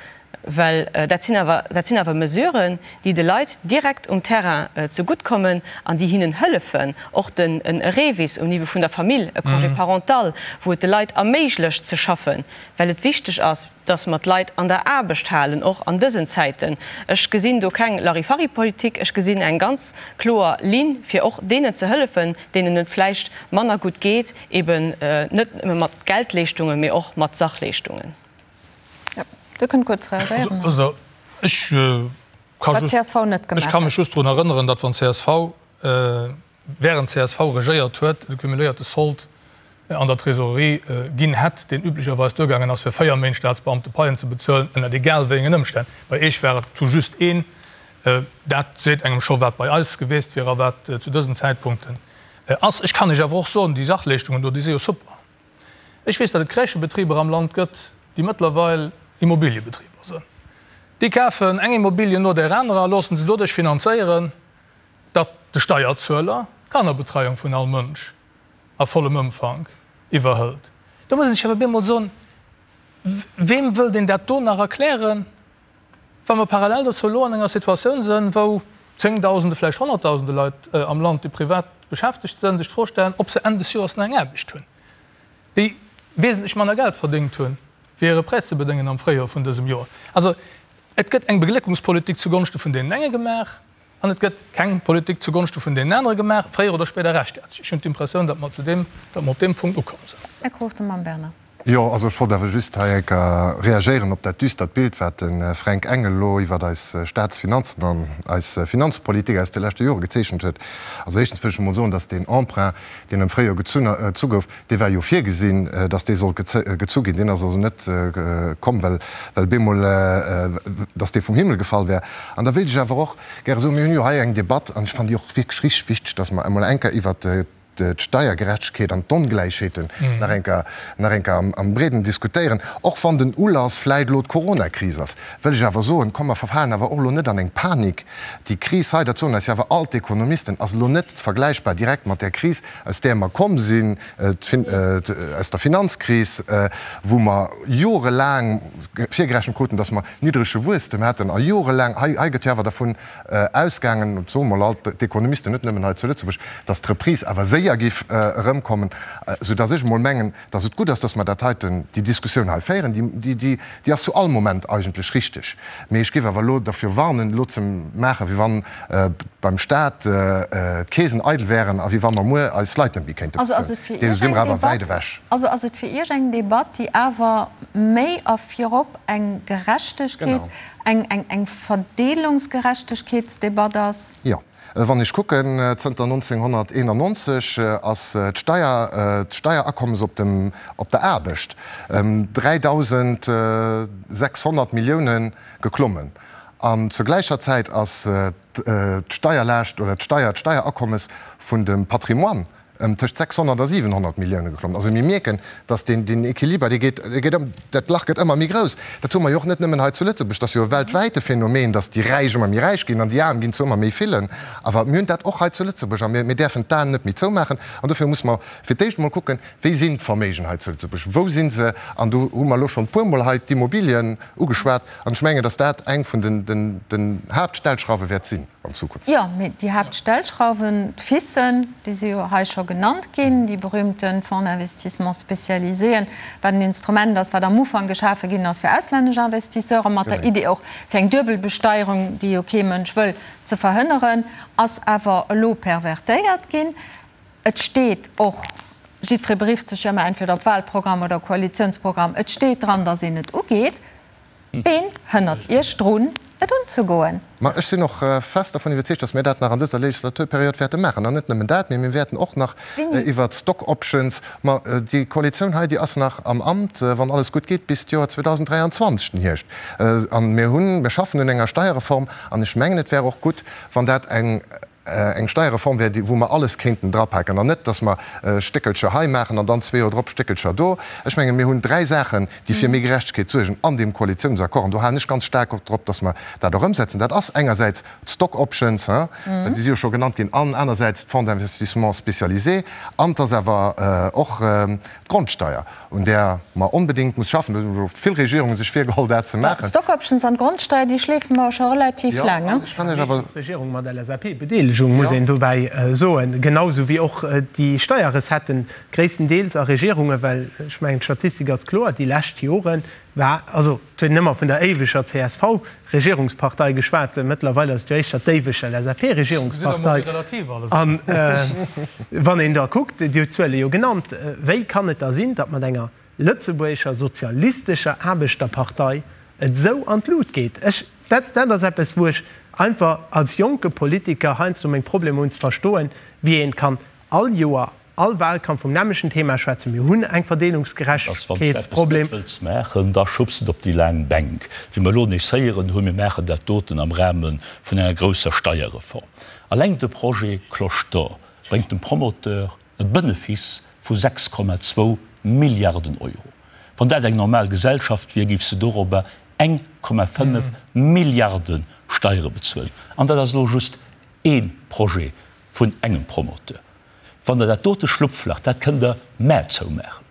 S4: Well dat sinn awer, dat sinn awer Mesuren, déi de Leit direkt um Terrain zegutt kommen an déi hinnen hëllefen, och den e REVIS um Niveau vun der Famill, e Congé parental, wou et de Leit erméiglecht ze schaffen, well et wichteg ass, dass mer d'Leit an der Aarbecht halen, och an dësen Zäiten. Ech gesinn do keng Larifari-Politik, ech gesinn eng ganz kloer Linn, fir och deenen ze hëllefen, deenen et vläicht manner gutt geet, eben net nëmme mat Geldleeschtungen, mee och mat Sachleeschtungen.
S1: Dir kënnt kuerz reagéieren.
S2: Also, ech ka just, ech ka mech just drun erënneren, datt wann csv, während csv regéiert huet, de cumuléierte Sold an der Trésorerie ginn hätt, deen üblecherweis duergaangen ass, fir 4 Méint Staatsbeamte Paien ze bezuelen, ënnert egal wéi engen Ëmstänn. Bei Eech war et tout juste een. Dat seet engem scho, wat bei eis geweest wier a wat zu dësen Zäitpunkten ass. Ech kann Iech awer och soen, déi Sachleeschtungen do, déi si jo super. Ech weess, datt et Crèchebetriber am Land gëtt, déi mëttlerweil Immobiliebetriber sënn. Déi kafen eng Immobilie no där anerer a loosse se doduerch finanzéieren, datt de Steierzueler d'Kannerbetreiung vun all Mënsch a vollem Ëmfank iwwerhëlt. Do muss ee sech awer bemol soen, Weem wëllt een dat do nach erklären, wa mer parallel dozou elo an enger Situatioun sënn, wou Zéngdausende, vläicht Honnertdausende Leit am Land, déi privat beschäftegt sënn, sech d'Fro stellen, ob se Enn des Joers nach eng Aarbecht hunn, déi wesentlech manner Geld verdéngt hunn, fir hire Prêt ze bedéngen am Fréijoer vun dësem Joer. Also et gëtt eng Begléckungspolitik zugonschte vun deenen enge gemaach an et gëtt keng Politik zugonschte vun deenen anere gemaach. Fréier oder spéider rächt dat sech. Ech hunn d'Impressioun, datt mer zu deem, datt mer op deem Punkt ukomm sinn.
S1: Här Cruchten mam Bernard.
S9: Jo, also ech wollt awer just hei eng Kéier reagéieren op dat düstert Bild, wat de Fränk Engel elo iwwert eis Staatsfinanzen an eis Finanzpolitik aus de leschte Jore gezeechent huet. Also éischtens wëll ech emol soen, dass deen Emprunt, deen am Fréijoer gezunn gezu gouf, dee war jo virgesinn, dass dee sollt gezu ginn. Deen ass also net komm, well well bemol, dass dee vum Himmel gefall wär. An da wéilt ech awer och gäre soen, mir hunn jo hei eng Debatt, an ech fannen déi och wierklech richteg wichteg, dass mer emol eng Kéier iwwert d'Steiergerechtegkeet an d'Ongläichheeten nach eng Kéier, nach eng Kéier am Breeden diskutéieren, och wann den Ulass vläit elo d'Coronakris ass, wëll ech awer soen, komm mer verfalen awer och elo net an eng Panik. Déi Kris hei, dat soen eis jo awer all d'Ekonomisten, ass elo net vergläichbar direkt mat där Kris, aus där mer komm sinn, aus der Finanzkris, wou mer jorelaang virgerechent kruten, datt mer niddrege Wuesstem hätten a jorelaang, hei, hei gëtt jo awer dervun ausgaangen, dat soe mol all d'Ekonomisten, net nëmmen hei zu Lëtzebuerg, datt d'Reprise awer séier géif erëmkommen, soudatt ech emol mengen, datt et gutt ass, datt mer dat heiten, déi Diskussioun hei féieren. Déi, déi, déi ass zu all Moment eigentlech richteg. Mee ech géif awer elo derfir warnen, elo ze maachen, wéi wann beim Stat d'Keesen eidel wären a wéi wa mer muer eis Leit net méi kéinte bezuelen. Deem si mer awer wäit ewech.
S1: Also ass et fir Iech eng Debatt, déi awer méi a virop eng Gerechtegkeets-, eng Verdeelungsgerechtegkeetsdebatt ass?
S9: Jo. Wann ech kucken, zënter 1991 ass d'Steier, d'Steierakommes op dem, op der Aarbecht ëm 3.600 Milliounen geklommen. An zur gläicher Zäit ass d'Steierlaascht oder d'Steier, d'Steierakommes vun dem Patrimoine ëm tëscht 600 a 700 Millioune geklommen. Also mir mierken, datt deen, deen Equiliber, dee geet, dee geet ëm, dat Lach gëtt ëmmer méi grouss. Dat hu mer jo och net nëmmen hei zu Lëtzebuerg, dat ass jo e weltwäite Phänomen, datt déi Räich ëmmer méi räich ginn an déi Aarm ginn zu ëmmer méi villen. Awer mir hunn dat och hei zu Lëtzebuerg a mir, mir däerfen d'Aen net méi zoumaachen. An dofir muss mer fir d'éischt emol kucken, Wéi sinn d'Verméigen hei zu Lëtzebuerg, wou si se? An do hu mer elo schonn e puermol hei d'Immobilien ugeschwat. An ech mengen, datt dat eng vun den, den, den Haaptstellschrauwe wäert sinn. an Zukunft.
S1: Jo, mee déi Haaptstellschrauwen, d'FISen, déi si jo hei scho genannt ginn, déi berühmte Fonds d'investissement spécialiséen, wat en Instrument ass, wat am Ufank geschafe ginn ass fir auslännesch Investisseuren, mat der Idee och, fir eng Duebelbesteierung, déi jo kee Mënsch wëll, ze verhënneren, ass awer elo pervertéiert ginn. Et steet och. Jiddweree berifft sech jo ëmmer entweder op Wahlprogramm oder Koalitiounsprogramm. Et steet dran, datt een et ugeet. Ween hënnert Iech drun, et unzegoen?
S9: Ma ech sinn och fest dervun iwwerzeegt, datt mir dat nach an dëser Legislaturperiod wäerte maachen. An net nëmmen dat, mee mir wäerten och nach iwwert d'Stock options, ma déi Koalitioun hei, déi ass nach am Amt, wann alles gutt geet, bis d'Joer 2023, den Hierscht. An mir hunn, mir schaffen un enger Steierreform an ech mengen, et wär och gutt, wann dat eng, eng Steierreform wär, wou mer alles kéinten drapaken an net, dass mer Stéckelcher hei maachen an dann zwee Joer drop Stéckelcher do. Ech mengen, mir hunn dräi Saachen, déi fir méi Gerechtegkeet suergen an deem Koalitiounsaccord, an do halen ech ganz staark och drop, dass mer dat och ëmsetzen. Dat ass engersäits d'Stock options, déi si jo scho genannt ginn, an anersäits d'Fonds d'investissement spécialisé an et ass awer och d'Grondsteuer. un där mer onbedéngt muss schaffen. Do hu vill Regierunge sech virgeholl, dat ze maachen.
S1: D'Stock options an d'Grondsteuer, déi schleefe mer scho relativ laang. Jo, an ech
S7: kann Iech awer. D'Regierung mat LSAP-Bedeelegung, muss een dobäi soen, genau sou wéi och déi Steierrecetten gréisstendeels a Regierungen, well ech mengen, d'Statistik ass kloer, déi lescht Jore war, also et huet een ëmmer vun der éiweger CSV-Regierungspartei geschwat, mëttlerweil ass et jo éischter d'éiweg LSAP-Regierungspartei. An wann een da kuckt, Dir hutt d'Zuele jo genannt, wéi kann et da sinn, datt mat enger lëtzebuergescher sozialistescher Aarbechterpartei et esou an d'Lut geet? Ech, dat, dat ass eppes, wou ech einfach als jonke Politiker heiansdo meng Problemer hunn ze verstoen, wéi een kann all Joer All Wahlkampf vum nämlechen Thema schwätzen. Mir hunn eng
S8: Dass wann s de eppes
S7: Verdeelungsgerechtegkeetsproblem.
S8: net wëlls maachen, da schubs et op déi laang Bänk. Wéi mer elo nees héieren hunn, mir maachen dat doten am Rahme vun enger grousser Steierreform. Alleng de Projet Cloche d'Or bréngt dem Promoteur e Benefice vu 6,2 Milliarden Euro. Wann dat eng normal Gesellschaft wier, géif se dorobber 1,5 Milliarde Steiere bezuelen. An dat ass elo just ee Projet vun engem Promoteur. Wann Der dat dote Schlupflach, dat kënnt Der mä zoumaachen.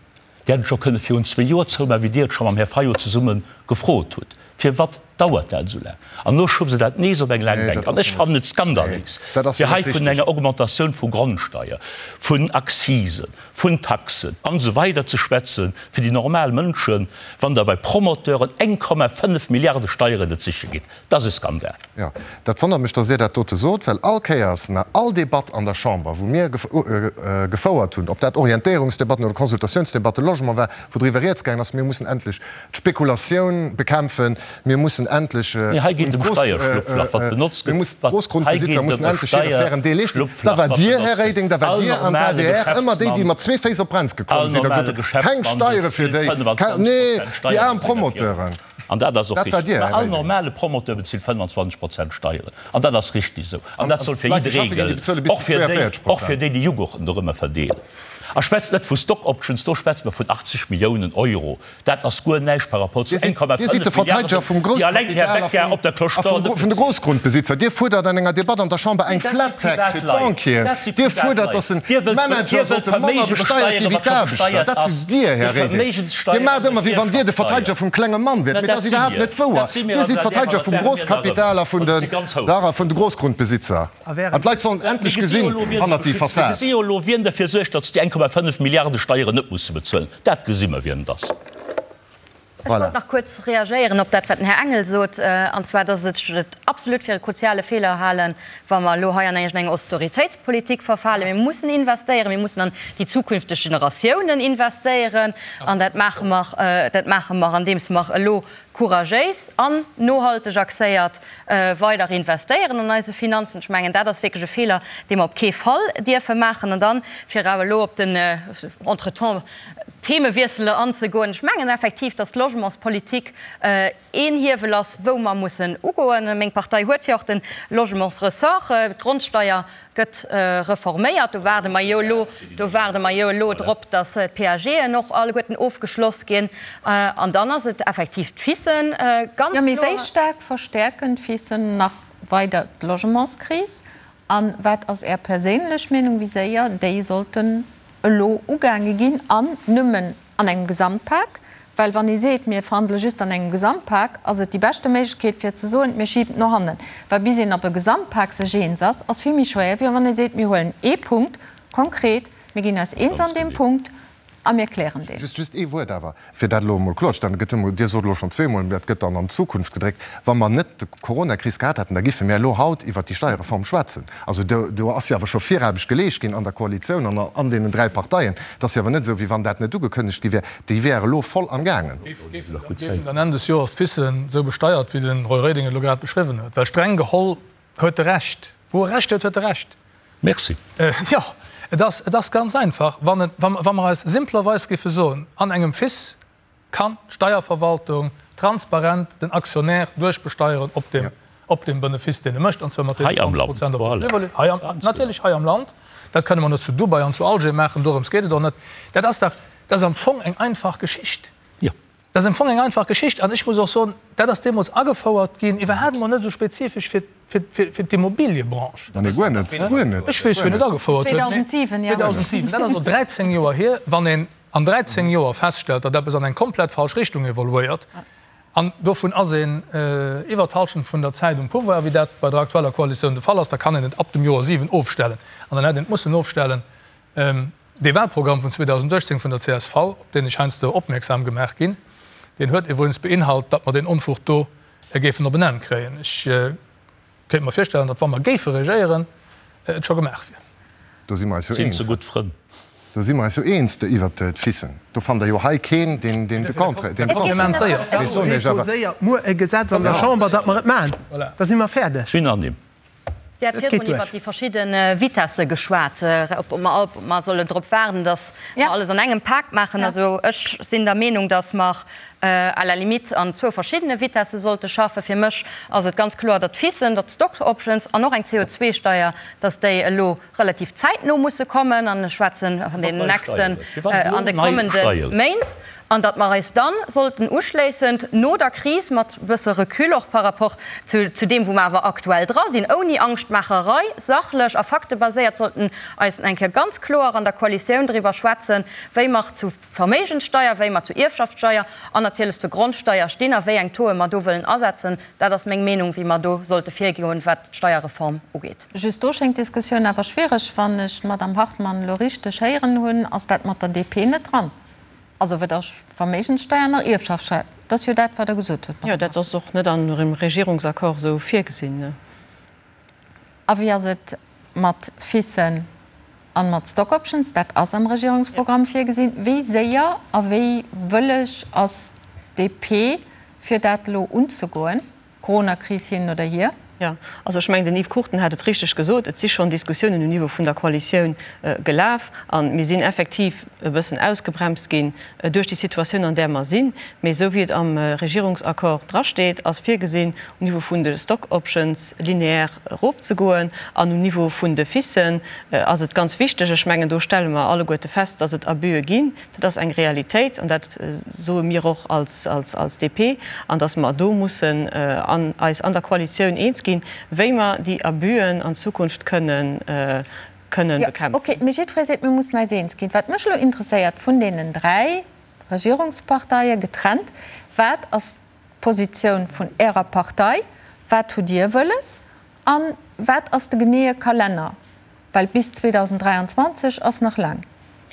S8: Dir hätt et scho kënne virun zwee Joer zoumaachen, wéi Dir et scho mam Här Fayot zesumme gefrot hutt. Firwat dauert dat esou laang? An elo schubst Der dat nees op eng laang Bänk. An ech fannen et skandaléis, fir hei vun enger Augmentatioun vu Grondsteier, vun Accisen, vun Taxen an esou weider ze schwätzen, fir déi normal Mënschen, wann Der bei Promoteuren 1,5 Milliarde Steieren net siche gitt. Dat ass e Skandal.
S9: Jo, dat wonnert mech, dass Dir dat dote sot, well all Kéiers, na all Debatt an der Chamber, wou mir gefouert hunn, ob dat Orientéierungsdebatten oder Consultatiounsdebatte Logement war, wou driwwer rieds gaangen ass, mir mussen endlech d'Spekulatioun bekämpfen, mir mussen endlech
S8: Nee, hei geet et ëm Steierschlupflach, wat benotzt
S9: gëtt. D'Grossgrundbesitzer mussen endlech hire fairen Deel leeschten. Da war Dir, Här Reding, da war Dir an d'ADR ëmmer déi, déi mat zwee Féiss op d'Brems gekomm sinn a gesot hunn, keng Steiere fir déi, nee, déi aarm Promoteuren.
S8: An dat ass och richtig. Mä all normale Promoteur bezilt 25 Prozent Steieren. An dat ass richtig esou. An dat soll fir jidderee gëllen, och fir déi, och fir déi, déi Jughurten dorëmmer verdeelen. A schwätzt net vu Stock Options, do schwätze mer vun 80 Milliounen Euro. Dat ass guer näischt par rapport zu 1,5 Milliarden, déi alleng den Här Becker op der Cloche d'Or net
S9: bezilt. Grossgrundbesitzer. Dir fuerdert an enger Debatt an der Chamber eng Flat Tax fir d'Banquieren. Dir fuerdert, datt de Manager sollte manner besteiert gi wéi d'Aarbechter. Dat sidd Dir, Här Reding. Dir maacht ëmmer, wéi wann Dir de Verteideger vum klenge Mann wiert, mee dat ass iwwerhaapt net wouer. Dir sidd d'Verteideger vum Grosskapital a vun de Grossgrundbesitzer. An d'Leit sollen endlech gesinn hannert déi
S8: Fassad. Mir gesi jo elo, wien derfir suergt, datt se déi 1,5 Milliarde Steieren net musse bezuelen. Dat gesi mer, wien et ass.
S6: Ech wollt nach kuerz reagéieren op dat, wat den Här Engel sot, an zwar, dass ech et absolut fir e kruziale Feeler halen, wa mer elo hei an iergendeng Austeritéitspolitik verfalen. Mir mussen investéieren, mir mussen an déi zukünfteg Generatiounen investéieren, an dat maache mer, dat maache mer, andeems mer elo couragéis an nohalteg axéiert weider investéieren an eise Finanzen. Ech mengen, dat ass wierklech e Feeler, dee mer op kee Fall dierfe maachen. An dann, fir awer elo op den entretemps Themewiessel anzegoen, ech mengen effektiv, dass d'Logementspolitik een Hiewel ass, wou mer mussen ugoen. Meng Partei huet jo och de Logementsressort. D'Grondsteier gëtt reforméiert. Do waarde mer jo elo, do waarde mer jo elo drop, datt d'PAGen och alleguerten ofgeschloss ginn. An dann ass et effektiv d'FISen,
S1: ganz kloer. Jo, mee wéi staark verstäerken d'FISen nach weider d'Logementskris? A wat ass Är perséinlech Meenung, wéi séier déi sollten elo ugaange ginn an nëmmen an engem Gesamtpak? Well wann ee seet, mir verhandele just an engem Gesamtpak, ass et déi beschte Méiglechkeet fir ze soen, mir schiben et no hannen. Well bis een op e Gesamtpak sech eens ass, ass vill méi schwéier, wéi wann ee seet, mir huelen ee Punkt konkret, mir ginn eis eens an deem Punkt. A mir klären deen.
S9: Just, just ee Wuert awer, fir dat elo emol kloerzestellen. Et gëtt emol, Dir sot elo schonn zweemol, dat gëtt dann an d'Zukunft gedréckt. Wa mer net d'Coronakris gehat hätten, da giffe mir elo haut iwwert déi Steierreform schwätzen. Also do, do ass jo awer scho Viraarbecht geleescht ginn an der Koalitioun an an deenen 3 Parteien. Et ass jo awer net esou, wéi wann dat net ugekënnegt gi wär. Déi wär elo voll amgaangen.
S2: Géifen dann Enn des Joers d'FICen esou besteiert, wéi de Roy Reding et elo grad beschriwwen huet? Well streng geholl huet e Recht. Wou e Recht huet, huet e Recht.
S8: Merci.
S2: Jo, et ass, et ass ganz einfach, wann et, wa mer eis simplerweis géife soen, an engem FIS kann d'Steierverwaltung transparent den Aktionär duerchbesteieren op dem, op dem Benefiss, deen e mécht, an zwar mat deenen 20 Prozent op der Plus-value. Hei am Land, natierlech hei am Land. Dat kënne mer net zu Dubai an zu Alger maachen, dorëms geet et och net. Dat ass dach, dat ass am Fong eng einfach Geschicht. Dat ass am Fong eng einfach Geschicht. An ech muss och soen, dat ass deemools agefouert ginn, iwwerhaapt emol net esou spezifesch fir, fir, fir d'Immobiliëbranche.
S9: Nee, guer net, guer net.
S2: Ech weess, wien et agefouert huet.
S1: 2007, jo.
S2: 2007, dat ass elo 13 Joer hier. Wann een an 13 Joer feststellt, datt eppes an eng komplett falsch Richtung evoluéiert, an dovun ass een iwwert d'Halschent vun der Zäit um Pouvoir, wéi dat bei der aktueller Koalitioun de Fall ass, da kann een et ab dem Joer 7 ofstellen. An dann hätt een et mussen ofstellen. Dee Wahlprogramm vun 2018 vun der csv, op deen ech heiansdo opmierksam gemaach ginn, deen huet iwwregens beinhalt, datt mer deen Onfug do géifen op en Enn kréien. Ech kéint mer virstellen, datt, wa mer géife regéieren, et scho gemaach wier.
S9: Do si mer eis jo
S8: Sinn
S9: eens.
S8: ze gutt Frënn.
S9: Do si mer eis jo eens iwwert d'Ficen. Do fannt Der jo hei keen, deen de Contraire, deen de Contraire.
S7: Ech soen Iech awer. Déposéiert muer e Gesetz an der Chamber, datt mer et maachen, da si mer fäerdeg.
S8: Unanime.
S6: Dir hat virdrun iwwert déi verschidde Vitesse geschwat, ob mer, ob mer sollen drop waarden, datt mer alles an engem Pak maachen. Also ech sinn der Meenung, datt mer à la limite an zwou verschiddene Vitesse sollte schaffen. Fir mech ass et ganz kloer, datt d'FICen, datt d'Stock Options an och eng CO2-Steier, datt déi elo relativ zäitno musse kommen, an ech schwätzen an deenen nächsten, an de kommende Méint, an datt mer eis dann sollten uschléissend no der Kris mat e bësse Recul och par rapport zu zu deem, wou mer awer aktuell dra sinn, ouni Angschtmaacherei, sachlech a faktebaséiert sollten eis eng Kéier ganz kloer an der Koalitioun driwwer schwätzen, wéi mer zu Verméigenssteier, wéi mer zur Ierfschaftssteier an natierlech zur Grondsteier stinn a wéi eng Tauxe mer do wëllen asetzen. Dat ass meng Meenung, wéi mer do sollte virgoen, wat d'Steierreform ugeet.
S1: Just do schéngt d'Diskussioun awer schwiereg. Wann ech d'Madame Hartmann elo richteg héieren hunn, ass dat mat der DP net dran. Also weder Verméigenssteier nach Ierfschaftssteier. Dat ass jo dat, wat Der gesot hutt,
S4: Madame
S1: Hartmann.
S4: Jo, dat ass och net an dem Regierungsaccord esou virgesinn.
S1: A wéi ass et mat FICen an mat Stock Options? Dat ass am Regierungsprogramm virgesinn. Wéi séier a wéi wëlleg ass d'DP, fir dat elo unzegoen? Coronakris hin oder hier.
S4: Jo, also ech mengen, den Yves Cruchten hat et richteg gesot, et si schonn Diskussiounen um Niveau vun der Koalitioun gelaf a mir sinn effektiv e bëssen ausgebremst ginn duerch déi Situatioun, an där mer sinn. Mee esou wéi et am Regierungsaccord drasteet, ass virgesinn, um Niveau vun de Stock Options linéaire erofzegoen an um Niveau vun de FICen ass et ganz wichteg, ech mengen, do stelle mer alleguerte fest, dass et Abüe ginn, Dat ass eng Realitéit an dat soe mir och als DP, an datt mer do mussen eis an der Koalitioun eens ginn, wéi mer déi Abüen an Zukunft kënnen bekämpfen.
S1: Jo, okay, mee jiddweree seet, mir mussen eis eens ginn. Wat mech elo interesséiert, vun deenen 3 Regierungsparteie getrennt, wat ass d'Positioun vun Ärer Partei, wat hutt Dir wëlles a wat ass de geneeë Kalenner? Well bis 2023 ass nach laang,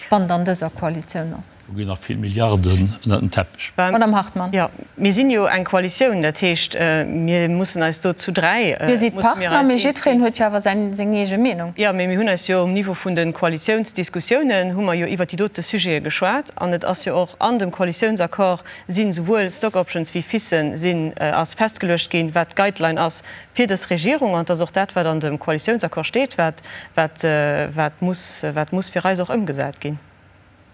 S1: wann et an dëser Koalitioun ass.
S8: Do ginn nach vill Milliarden ënnert den Teppech.
S1: Madame Hartmann.
S4: Jo, mir sinn jo eng Koalitioun, dat heescht, mir mussen eis do zu 3,
S1: Dir sidd
S4: musse mir
S1: Partner,
S4: eis
S1: mee
S4: eens ginn.
S1: jiddwereen huet jo awer säin, seng eege Meenung.
S4: Jo, mee mir hunn eis jo um Niveau vun de Koalitiounsdiskussiounen hu mer jo iwwert déi dote Sujete geschwat an et ass jo och an dem Koalitiounsaccord sinn souwuel Stock Options wéi FICen sinn, ass festgeluecht ginn, wat d'Guideline ass fir dës Regierung, an et ass och dat, wat an dem Koalitiounsaccord steet, wat, wat, wat muss, wat muss fir eis och ëmgesat ginn.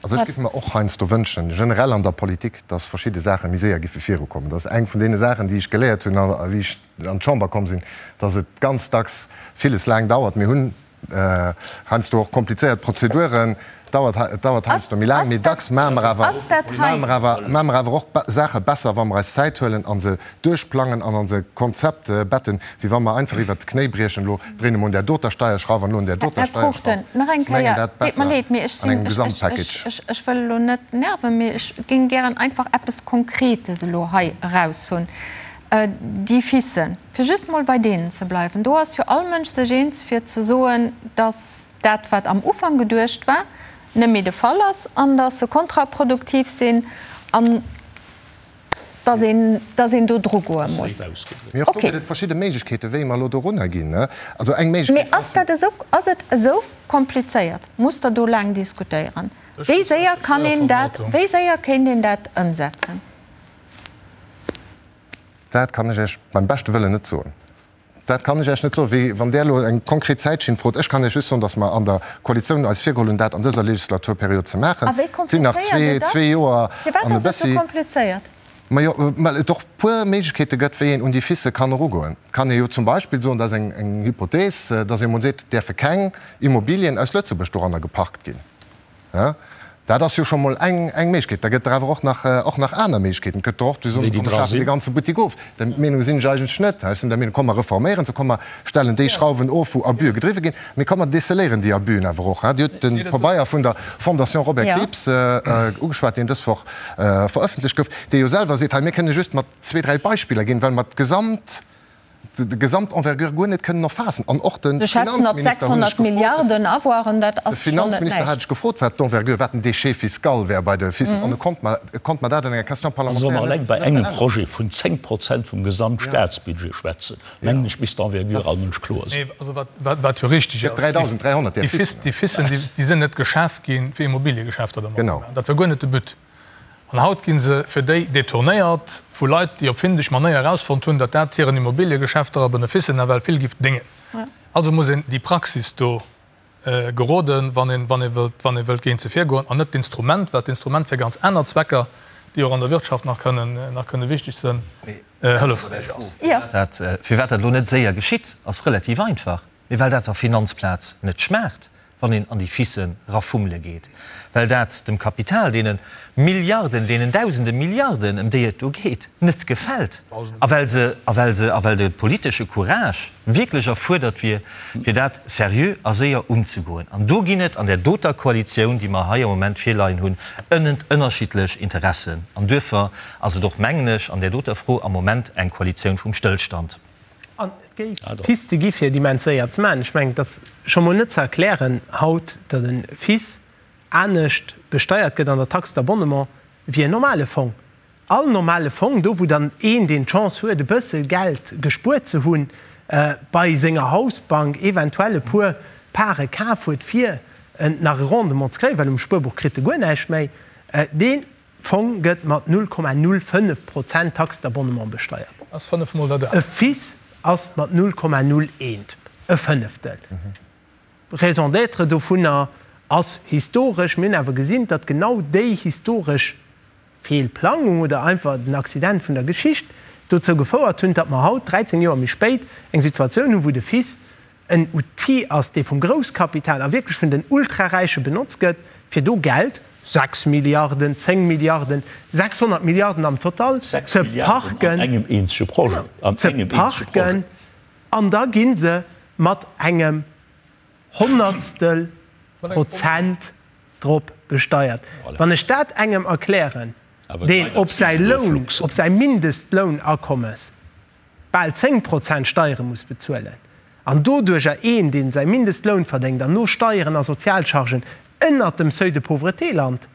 S9: Also ech géif mer och heiansdo wënschen, generell an der Politik, dass verschidde Saache méi séier giffe virukommen. Dat ass eng vun deene Saachen, déi ech geléiert hunn, wéi ech an d'Chamber komm sinn, dass et ganz dacks villes laang dauert. Mir hunn Heiansdo och komplizéiert Prozeduren, dauert, et dauert heiansdo méi laang, mee dacks maache mer awer, maache mer awer, maache mer awer och Saache besser, wa mer eis Zäit huelen a se duerchplangen an an se Konzept betten, wéi wa mer einfach iwwert d'Knéi briechen, elo dréine mer un där doter Steierschrauf an elo un där doter
S1: Här
S9: Steierschrauf.
S1: Cruchten, nach eng
S9: Ech mengen
S1: Kéier,
S9: dat
S1: deet mer
S9: besser
S1: leed, mee ech
S9: an
S1: sinn,
S9: engem
S1: ech, ech,
S9: Gesamtpackage.
S1: ech, ech wëll elo net nerven, mee ech géing gären einfach eppes Konkretes elo hei eraushunn. Déi FICen, fir just mol bei deenen ze bleiwen, do ass jo all Mënsch sech eens fir ze soen, datt dat wat am Ufank geduecht war. net méi de Fall ass an datt se kontraproduktiv sinn an datt een, datt een do drugoe muss.
S9: Mee och do gëtt et verschidde Méiglechkeeten, wéi mer elo dorunner ginn. Also eng
S1: Méiglechkeet ass. Mee ass dat esou, ass et esou komplizéiert? Musst Der do laang diskutéieren? Wéi séier kann een dat, wéi séier kéint een dat ëmsetzen?
S9: Dat kann ech Iech beim beschte Wëllen net soen. Dat kann ech Iech net soen. Wéi wann Der elo eng konkret Zäitschinn frot. Ech kann Iech just soen, datt mer an der Koalitioun eis virgeholl hunn, dat an dëser Legislaturperiod ze maachen.
S1: A wéi
S9: Et sinn nach
S1: komplizéiert et ass?
S9: zwee Joer
S1: Firwat
S9: an e
S1: ass et sou
S9: bëssi.
S1: komplizéiert?
S9: Majo, well et och puer Méiglechkeete gëtt, wéi een un déi FICë kann erugoen. Et kann ee jo zum Beispill soen, dat ass eng Hypothees, datt ee emol seet, et däerfe keng Immobilien aus Lëtzebuerg doranner geparkt ginn. Dat ass jo scho mol eng Méiglechkeet. Da gëtt der awer och nach, och nach aner Méiglechkeeten. Et gëtt der och, déi soen, komm mer schafen dee ganze Buttek of. Där Meenung sinn ech eigentlech net. Ech sinn der Meenung, komm mer reforméieren se, komm mer stellen déi Schrauwen of, wou Abuse gedriwwe ginn, mee komm mer déceléieren déi Abusën awer och. Dir hutt de Pabeier vun der Fondation Robert Krieps ugeschwat, deen dës Woch verëffentlecht gouf, dee jo selwer seet, hei mir kënne just mat zwee, dräi Beispiller ginn, well mer d'gesamt, de Gesamtenvergure guer net kënnen erfaassen. An och de
S1: Se schätzen op
S9: Finanzminister hunn ech
S1: 600 Milliarden Avoiren, dat
S9: De
S1: ass schonn net
S9: Finanzminister hat
S1: näischt.
S9: ech gefrot, wat d'Envergure, wat den Déchet fiscal wär bei de FIS, an e konnt mer, e konnt mer dat an enger Question
S8: Also wa mer
S9: parlementaire
S8: eleng
S9: net,
S8: bei
S9: net
S8: engem
S9: beäntweren.
S8: Projet vun 10 Prozent vum Gesamtstaatsbudget schwätzen, mengen ech, misst d'Envergure all Mënsch kloer sinn.
S2: Nee, also wat, wat, wat jo richtig
S9: Gëtt
S2: ass,
S9: 3.300 där
S2: déi
S9: FISen.
S2: Déi FISen, déi, déi sinn net geschaf ginn, fir Immobiliegeschäfter dermat ze
S9: Genau.
S2: maachen. Dat war guer net de But. An haut gi se fir déi detournéiert vu Leit, déi op findeg Manéier erausfonnt hunn, datt dat hiren Immobiliegeschäfter a Beneficen nawell vill giff déngen. Also muss een déi Praxis do geroden, wann een, wann ee wëllt, wann ee wëllt géint se virgoen, an net d'Instrument, well d'Instrument fir ganz aner Zwecker, déi och an der Wirtschaft nach kënnen, nach kënne wichteg sënn, hëllefräich ass.
S5: Dat, firwat dat elo net séier geschitt, ass relativ einfach. Mee well dat der Finanzplaz net schmaacht, wann een an déi Fissen rafummele geet, well dat dem Kapital, deene Milliarden, deenen dausende Milliarden, ëm déi et do geet, net gefält a well se, a well se, a well de politesche Courage wierklech erfuerdert wier, fir dat seriö a séier unzegoen. An do ginn et an där doter Koalitioun, déi mer hei am Moment virleien hunn, ënnent ënnerschiddlech Interessen. An duerfir ass et och, mengen ech, an där doter Fro am Moment eng Koalitioun vum Stëllstand.
S7: An et géif Piste gi fir et immens séier ze maachen. Ech mengen, et ass scho mol net ze erklären haut, datt e FIS anescht besteiert gëtt an der Taxe d'abonnement wéi en normale Fong. All normale Fong, do wou dann een, deen d'Chance huet e bësse Geld gespuert ze hunn, bei senger Hausbank eventuell e puer Pare kaf huet, fir nach e Rendement ze kréien, well um Spuerbuch kritt e guer näischt méi, dee Fong gëtt mat 0,05 Prozent Taxe d'abonnement besteiert.
S2: Ass fënnef mol dat.
S7: E FIS ass mat 0,01, e Fënneftel. Raison d'être dovunner ass historesch. Mir hunn awer gesinn, datt genau déi historesch Feelplangung oder einfach den Accident vun der Geschicht dozou gefouert hunn, datt mer haut, 13 Joer méi spéit, eng Situatioun hunn, wou de FIS en Outil ass, dee vum Grousskapital a wierklech vun den Ultraräiche benotzt gëtt, fir do Geld, 6 Milliarden, 10 Milliarden, 600 Milliarden am Total, ze parken, ze parken, an da gi se mat engem Honnertstel Prozent drop besteiert. Wann ech dat engem erklären, deen op säi Loun, op säi Mindestlounakommes bal 10 Prozent Steiere muss bezuelen an doduercher een, deen säi Mindestloun verdéngt an no Steieren a Sozialchargen ënnert dem Seuil de pauvreté lant,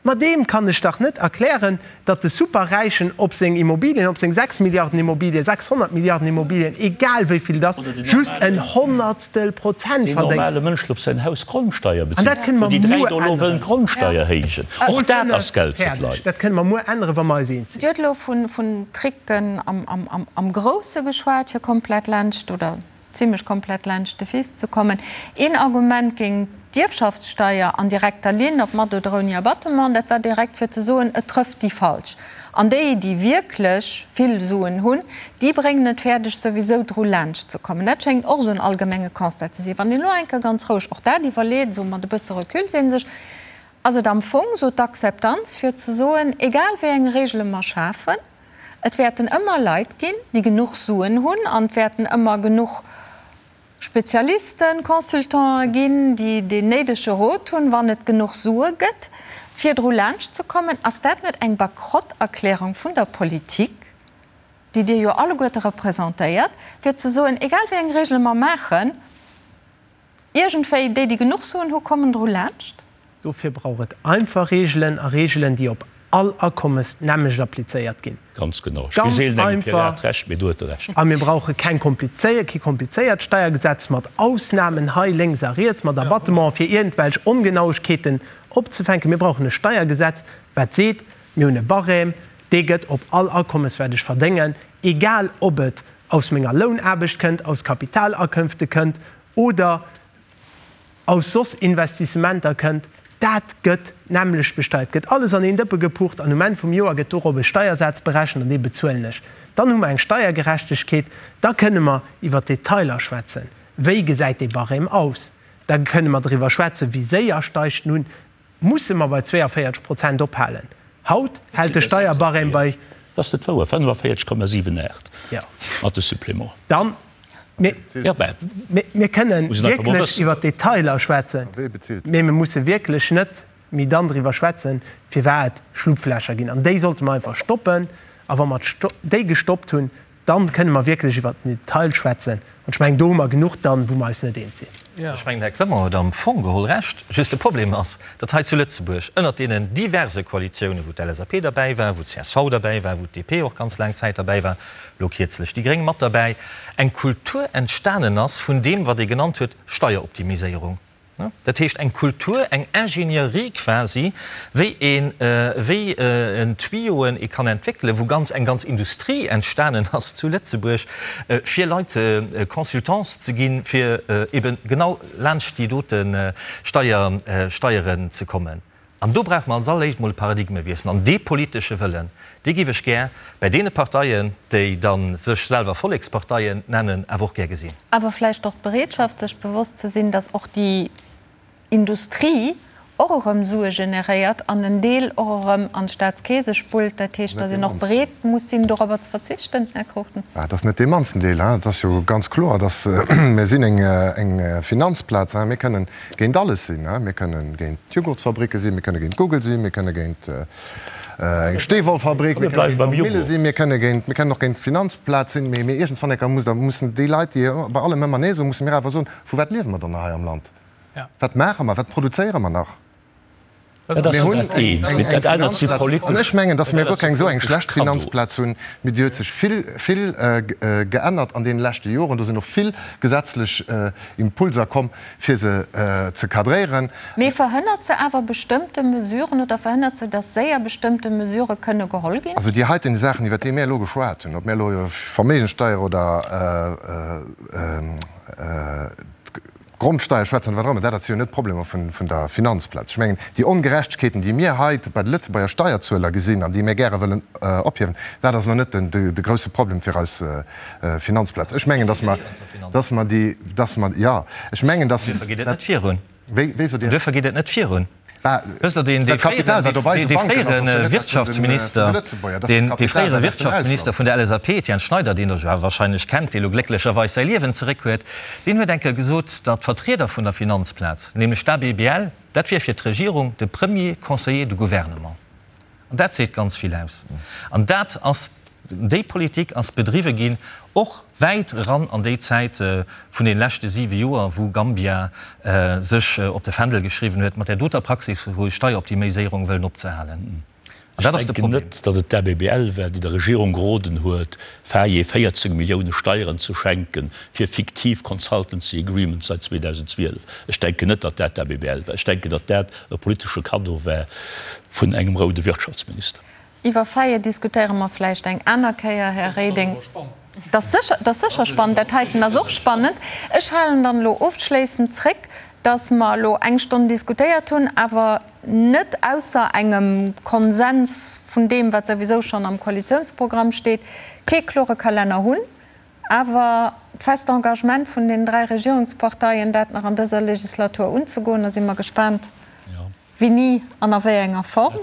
S7: ma deem kann ech dach net erklären, datt de Superräichen op seng Immobilien, op seng 6 Milliarden Immobilien, 600 Milliarden Immobilien, egal wéi vill et ass, just en Honnertstel Prozent
S8: Deen
S7: verdéngt.
S8: normale Mënsch, deen op säin Haus Grondsteier
S7: An dat
S8: bezilt,
S7: kënne
S8: wou
S7: mer
S8: déi 3
S7: muer
S8: do elo wëllen
S7: änneren.
S8: d'Grondsteier héijen, och dat ass Geld fir
S7: Fäerdeg.
S8: d'Leit.
S7: Dat kënne mer muer änneren, wa mer eis eens sinn.
S1: Dir hutt elo vun Tricken am Grousse geschwat, fir komplett laanscht oder zimlech komplett laanscht de Fils ze kommen. Een Argument géint d'Ierfschaftssteier an direkter Linn, ob mat oder ouni Abattement, dat war direkt fir ze soen, et trëfft déi Falsch. An déi, déi wierklech vill Suen hunn, déi bréngen et fäerdeg, souwisou dru laanscht ze kommen. Dat schéngt och esou en allgemenge Constat ze sinn. Wann een elo eng Kéier ganz roueg och dat iwwerleet, esou mat e bësse Recul, seet ee sech, Ass et am Fong esou d'Akzeptanz fir ze soen, egal wéi eng Regele mer schafen, et wäerten ëmmer Leit ginn, déi genuch Suen hunn an et wäerten ëmmer genuch Spezialisten, Consultanten ginn, déi deen néidege Rot hunn, wann et genuch Sue gëtt, fir dru laanscht ze kommen? Ass dat net eng Bankrotterklärung vun der Politik, déi Dir jo alleguerte representéiert, fir ze soen, egal wéi eng Regele mer maachen, Iergendwéi, déi, déi genuch Suen hu kommen dru laanscht.
S7: Dofir brauch et einfach Reegelen a Reegelen, déi op all Akommes d'nämmlecht applizéiert ginn.
S8: Ganz genau. Ech gi seelen engem Pirat Recht, mee do huet e Recht.
S7: A mir brauche keng komplizéiert, kee komplizéiert Steiergesetz mat Ausnamen hei lénks a riets, mat Abattementen, fir iergendwelch Ongenauegkeeten opzefänken. Mir brauchen e Steiergesetz, wat seet, Mir hunn e Barème, dee gëtt op all Akommes, wat ech verdéngen, egal ob et aus menger Lounaarbecht kënnt, aus Kapitalakënfte kënnt oder aus soss Investissementer kënnt, dat gëtt d'nämmlecht besteiert, gëtt alles an een Dëppe gepucht an um Enn vum Joer gëtt dorop e Steiersaz berechent an dee bezuelen ech. Dann hu mer eng Steiergerechtegkeet, da kënne mer iwwer d'Detailer schwätzen, wéi gesäit dee Barème aus, da kënne mer driwwer schwätzen, wéi séier steigt en un, Musse mer bei 42 Prozent ophalen? Haut hält de Steierbarème bei.
S8: Dat ass net wouer, 45,78 mat de Supplément.
S7: Dann, mir kënnen wierklech iwwer d'Detailer schwätzen, mee mir musse wierklech net méi dann driwwer schwätzen, firwat et Schlupflächer ginn. An déi sollte mer einfach stoppen. A wa mer déi gestoppt hunn, Dann kënne mer wierklech iwwert den Detail schwätzen. An ech mengen, do hu mer genuch dann, wou mer eis net eens sinn.
S5: Ech mengen, Här Clement huet am Fong geholl Recht. Just de Problem ass, datt hei zu Lëtzebuerg ënnert deenen diverse Koalitiounen, wou d'LSAP derbäi war, wou d'CSV derbäi war, wou d'DP och ganz laang Zäit derbäi war, elo kierzlech déi Gréng mat derbäi, eng Kultur entstanen ass vun deem, wat ee genannt huet Steieroptimiséierung. Dat heescht eng Kultur, eng Ingénierie quasi, wéi een, wéi en Tuyauxen ee kann entwéckelen, wou ganz, eng ganz Industrie entstanen ass zu Lëtzebuerg, fir Leit Consultants ze ginn, fir eben genau laanscht déi dote Steier, Steieren ze kommen. An do brauche mer als alleréischt emol e Paradigmewiessel. An dee politesche Wëllen, dee géif ech gär bäi deene Parteien, déi da sech selwer Volleksparteien nennen, awer och gär gesinn.
S1: Awer vläicht och d'Bereetschaft, sech bewosst ze sinn, datt och déi Industrie och erëm Sue generéiert an en Deel och erëm an d'Staatskeese spullt. Dat heescht, datt een och bereet muss sinn, dorobber ze verzichten, Här Cruchten.
S9: Dat ass net dee mannsten Deel. Et ass jo ganz kloer, datt mir sinn eng Finanzplaz. Mir kënnen géint alles sinn. Mir kënne géint d'Jugurtsfabricke sinn, mir kënne géint Google sinn, mir kënne géint eng Steewollfabrik, mir kënne géint Wandmille sinn, mir kënne géint, mir kënnen och géint d'Finanzplaz sinn. Mee iergendwann eng Kéier muss da mussen déi Leit, déi bei allem ëmmer Nee soen, musse mir awer soen, Vu wat liewe mer dann nach hei am Land? Wat maache mer? Wat produzéiere mer nach?
S8: Dat ass jo dat eent, mee dat anert si politesch.
S9: An ech mengen, datt mir guer keng esou eng schlecht Finanzplaz hunn, mee déi huet sech vill, vill geännert an deene leschte Joren. Do sinn och vill gesetzlech Impulser komm, fir se ze cadréieren.
S1: Mee verhënnert se awer bestëmmte Mesuren oder verhënnert se, datt séier bestëmmte Mesurë kënne geholl ginn?
S9: Also déi heiten Saachen, iwwert déi mir elo geschwat hunn, ob mir elo Verméigenssteier oder Grondsteier schwätzen, wat och ëmmer, dat dat si jo net d'Problemer vun der Finanzplaz. Ech mengen, déi Ongerechtegkeeten, déi mir hei bei de Lëtzebuerger Steierzueler gesinn an déi mir gäre wëllen ophiewen, dat ass elo net de grousse Problem fir eis Finanzplaz. Ech mengen, datt mer, datt mer déi, datt mer, jo, ech mengen, datt.
S5: Duerfir geet et net virun.
S9: Wéi, wéi sot Dir?
S5: Duerfir geet et net virun. Wësst Der, deen, dee fréieren, dee fréiere Wirtschaftsminister, deen, dee fréiere Wirtschaftsminister vun der LSAP, Etienne Schneider, deen Der jo awer wahrscheinlech kennt, dee lo glécklecherweis säi Liewen zeréck huet, deen huet eng Kéier gesot, datt d'Vertrieder vun der Finanzplaz, nämlech d'ABBL, dat wier fir d'Regierung de premier conseiller du gouvernement. An dat seet ganz vill aus. An dat ass, déi Politik ass bedriwwe ginn, och wäit eran an déi Zäit vun deene leschte siwe Joer, wou Gambia sech op de Fändel geschriwwen huet, mat där doter Praxis vu Steieroptimiséierung wëllen opzehalen.
S8: An dat ass de Problem. Ech denken net, datt et d'ABBL war, déi der Regierung geroden huet, Faye 14 Millioune Steieren ze schenken fir fiktiv Consultancy Agreements seit 2012. Ech denken net, datt dat d'ABBL war. Ech denken, datt dat e politesche Kaddo war vun engem roude Wirtschaftsminister.
S1: Iwwer Faye diskutéiere mer vläicht eng aner Kéier, Här Reding. Dat ass sécher, dat ass sécher spannend. Dat heiten ass och spannend. Ech halen dann elo ofschléissend zréck, dass mer elo eng Stonn diskutéiert hunn, awer net ausser engem Konsens vun deem, wat souwisou schonn am Koalitionsprogramm steet, kee klore Kalenner hunn, awer d'fest Engagement vun den dräi Regierungsparteien, dat nach an dëser Legislatur unzegoen. Da si mer gespaant, wéini an a wéi enger Form.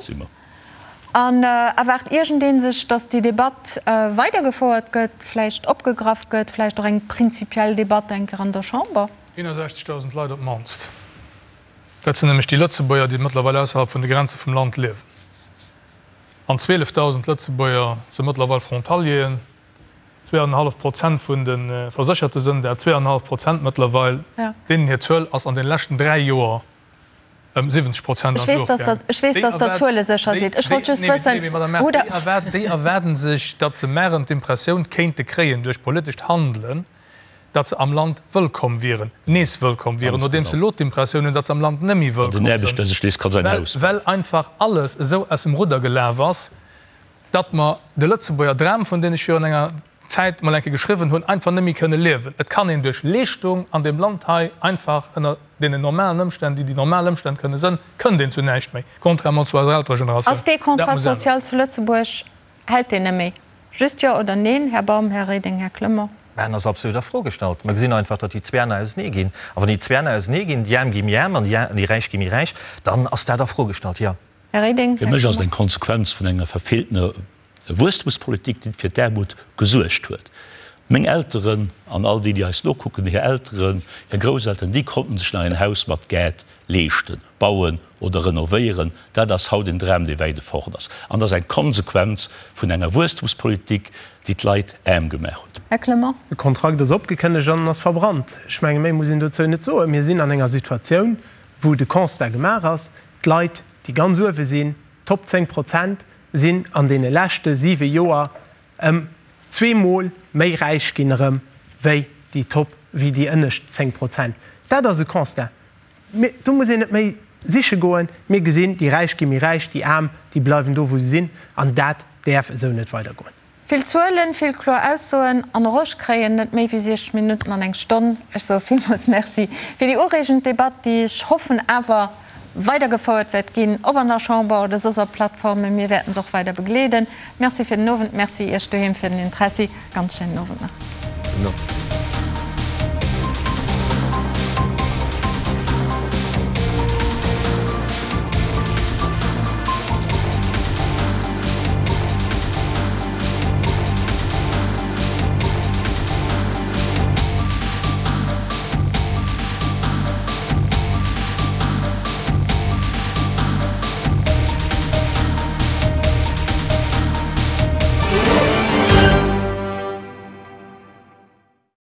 S1: An erwaart iergendee sech, datt déi Debatt weidergefouert gëtt, vläicht opgegraff gëtt, vläicht och eng prinzipiell Debatt eng Kéier an der Chamber?
S2: 61.000 Leit op d'mannst. Dat sinn nämlech déi Lëtzebuerger, déi mëttlerweil ausserhalb vun de Grenze vum Land liewen. An 12.000 Lëtzebuerger si mëttlerweil Frontalieren. Zweeanenhallef Prozent vun de Versécherte sënn dat, zweeanenhallef Prozent mëttlerweil. Deenen hir Zuel ass an de leschten dräi Joer. Ëm 70 Prozent an d'Luucht gaangen.
S1: Ech weess, datt Der Zuele sécher sidd. Ech wollt just wëssen, wou Der.
S2: Déi erwaarden sech, datt se maren d'Impressioun kéinte kréien duerch politescht Handelen, datt se am Land wëllkomm wieren, nees wëllkomm wieren, nodeems se elo d'Impressioun hunn, datt se am Land net méi wëllkomm sinn, well einfach alles esou aus dem Rudder gelaf ass, datt mer de Lëtzebuerger Dram, vun deem ech virun enger Zäit mol eng Kéier geschriwwen hunn, einfach net méi kënne liewen. Et kann een duerch Leeschtung an deem Land hei einfach ënner deenen normalen Ëmstänn, déi déi normal Ëmstänn kënne sënn, kënnt een zu näischt méi, contrairement zu eiser älterer Generatioun.
S1: Ass dee Contrat social zu Lëtzebuerg, hält deen net méi? Just Jo oder Neen, Här Baum, Här Reding, Här Clement?
S5: Mä en ass absolut a Fro gestallt. Mer gesinn einfach, datt déi Zwee Enner ausenee ginn. A wann déi Zwee Enner ausenee ginn, déi Aarm gi méi aarm an déi Räich gi méi räich, dann ass dat a Fro gestallt, jo.
S1: Här Reding,
S8: Fir
S1: Här
S8: mech ass et eng
S1: Clement.
S8: Konsequenz vun enger verfeeltener Wuesstemspolitik, déi fir d'Aarmut gesuergt huet. Meng Elteren an all déi, déi eis nokucken, hir Elteren, hir Grousselteren, déi konnten sech nach een Haus mat Gaart leeschten, bauen oder renovéieren. Dat ass haut en Dram, dee wäit efort ass. An dat ass eng Konsequenz vun enger Wuesstemspolitik, déi d'Leit aarm gemaach huet.
S1: Här Clement.
S7: De Kontrakt ass opgekënnegt an en ass verbrannt. Ech menge méi muss een dozou net soen. Mir sinn an enger Situatioun, wou de Constat gemaach ass, d'Leit, déi ganz uewe sinn, d'Top 10 Prozent, sinn an deene leschte siwe Joer ëm zweemol méi räich ginn erëm wéi déi Top, wéi déi ënnescht 10 Prozent. Dat ass e Constat. Mir, do muss een net méi siche goen. Mir gesinn, déi Räich gi méi räich, déi Aarm, déi bleiwen do wou se sinn. An dat däerf esou net weidergoen.
S1: Vill Zuelen, vill kloer Aussoen an och ech kréien net méi wéi 60 Minutten an eng Stonn. Ech soe villmools Merci fir déi ureegend Debatt, déi ech hoffen awer weidergefouert wäert ginn, ob an der Chamber oder soss op Plattformen. Mir wäerten se och weider begleeden. Merci fir den Owend, Merci Iech doheem fir den Interessi. Ganz schéinen Owend nach.
S9: Gudden Owend.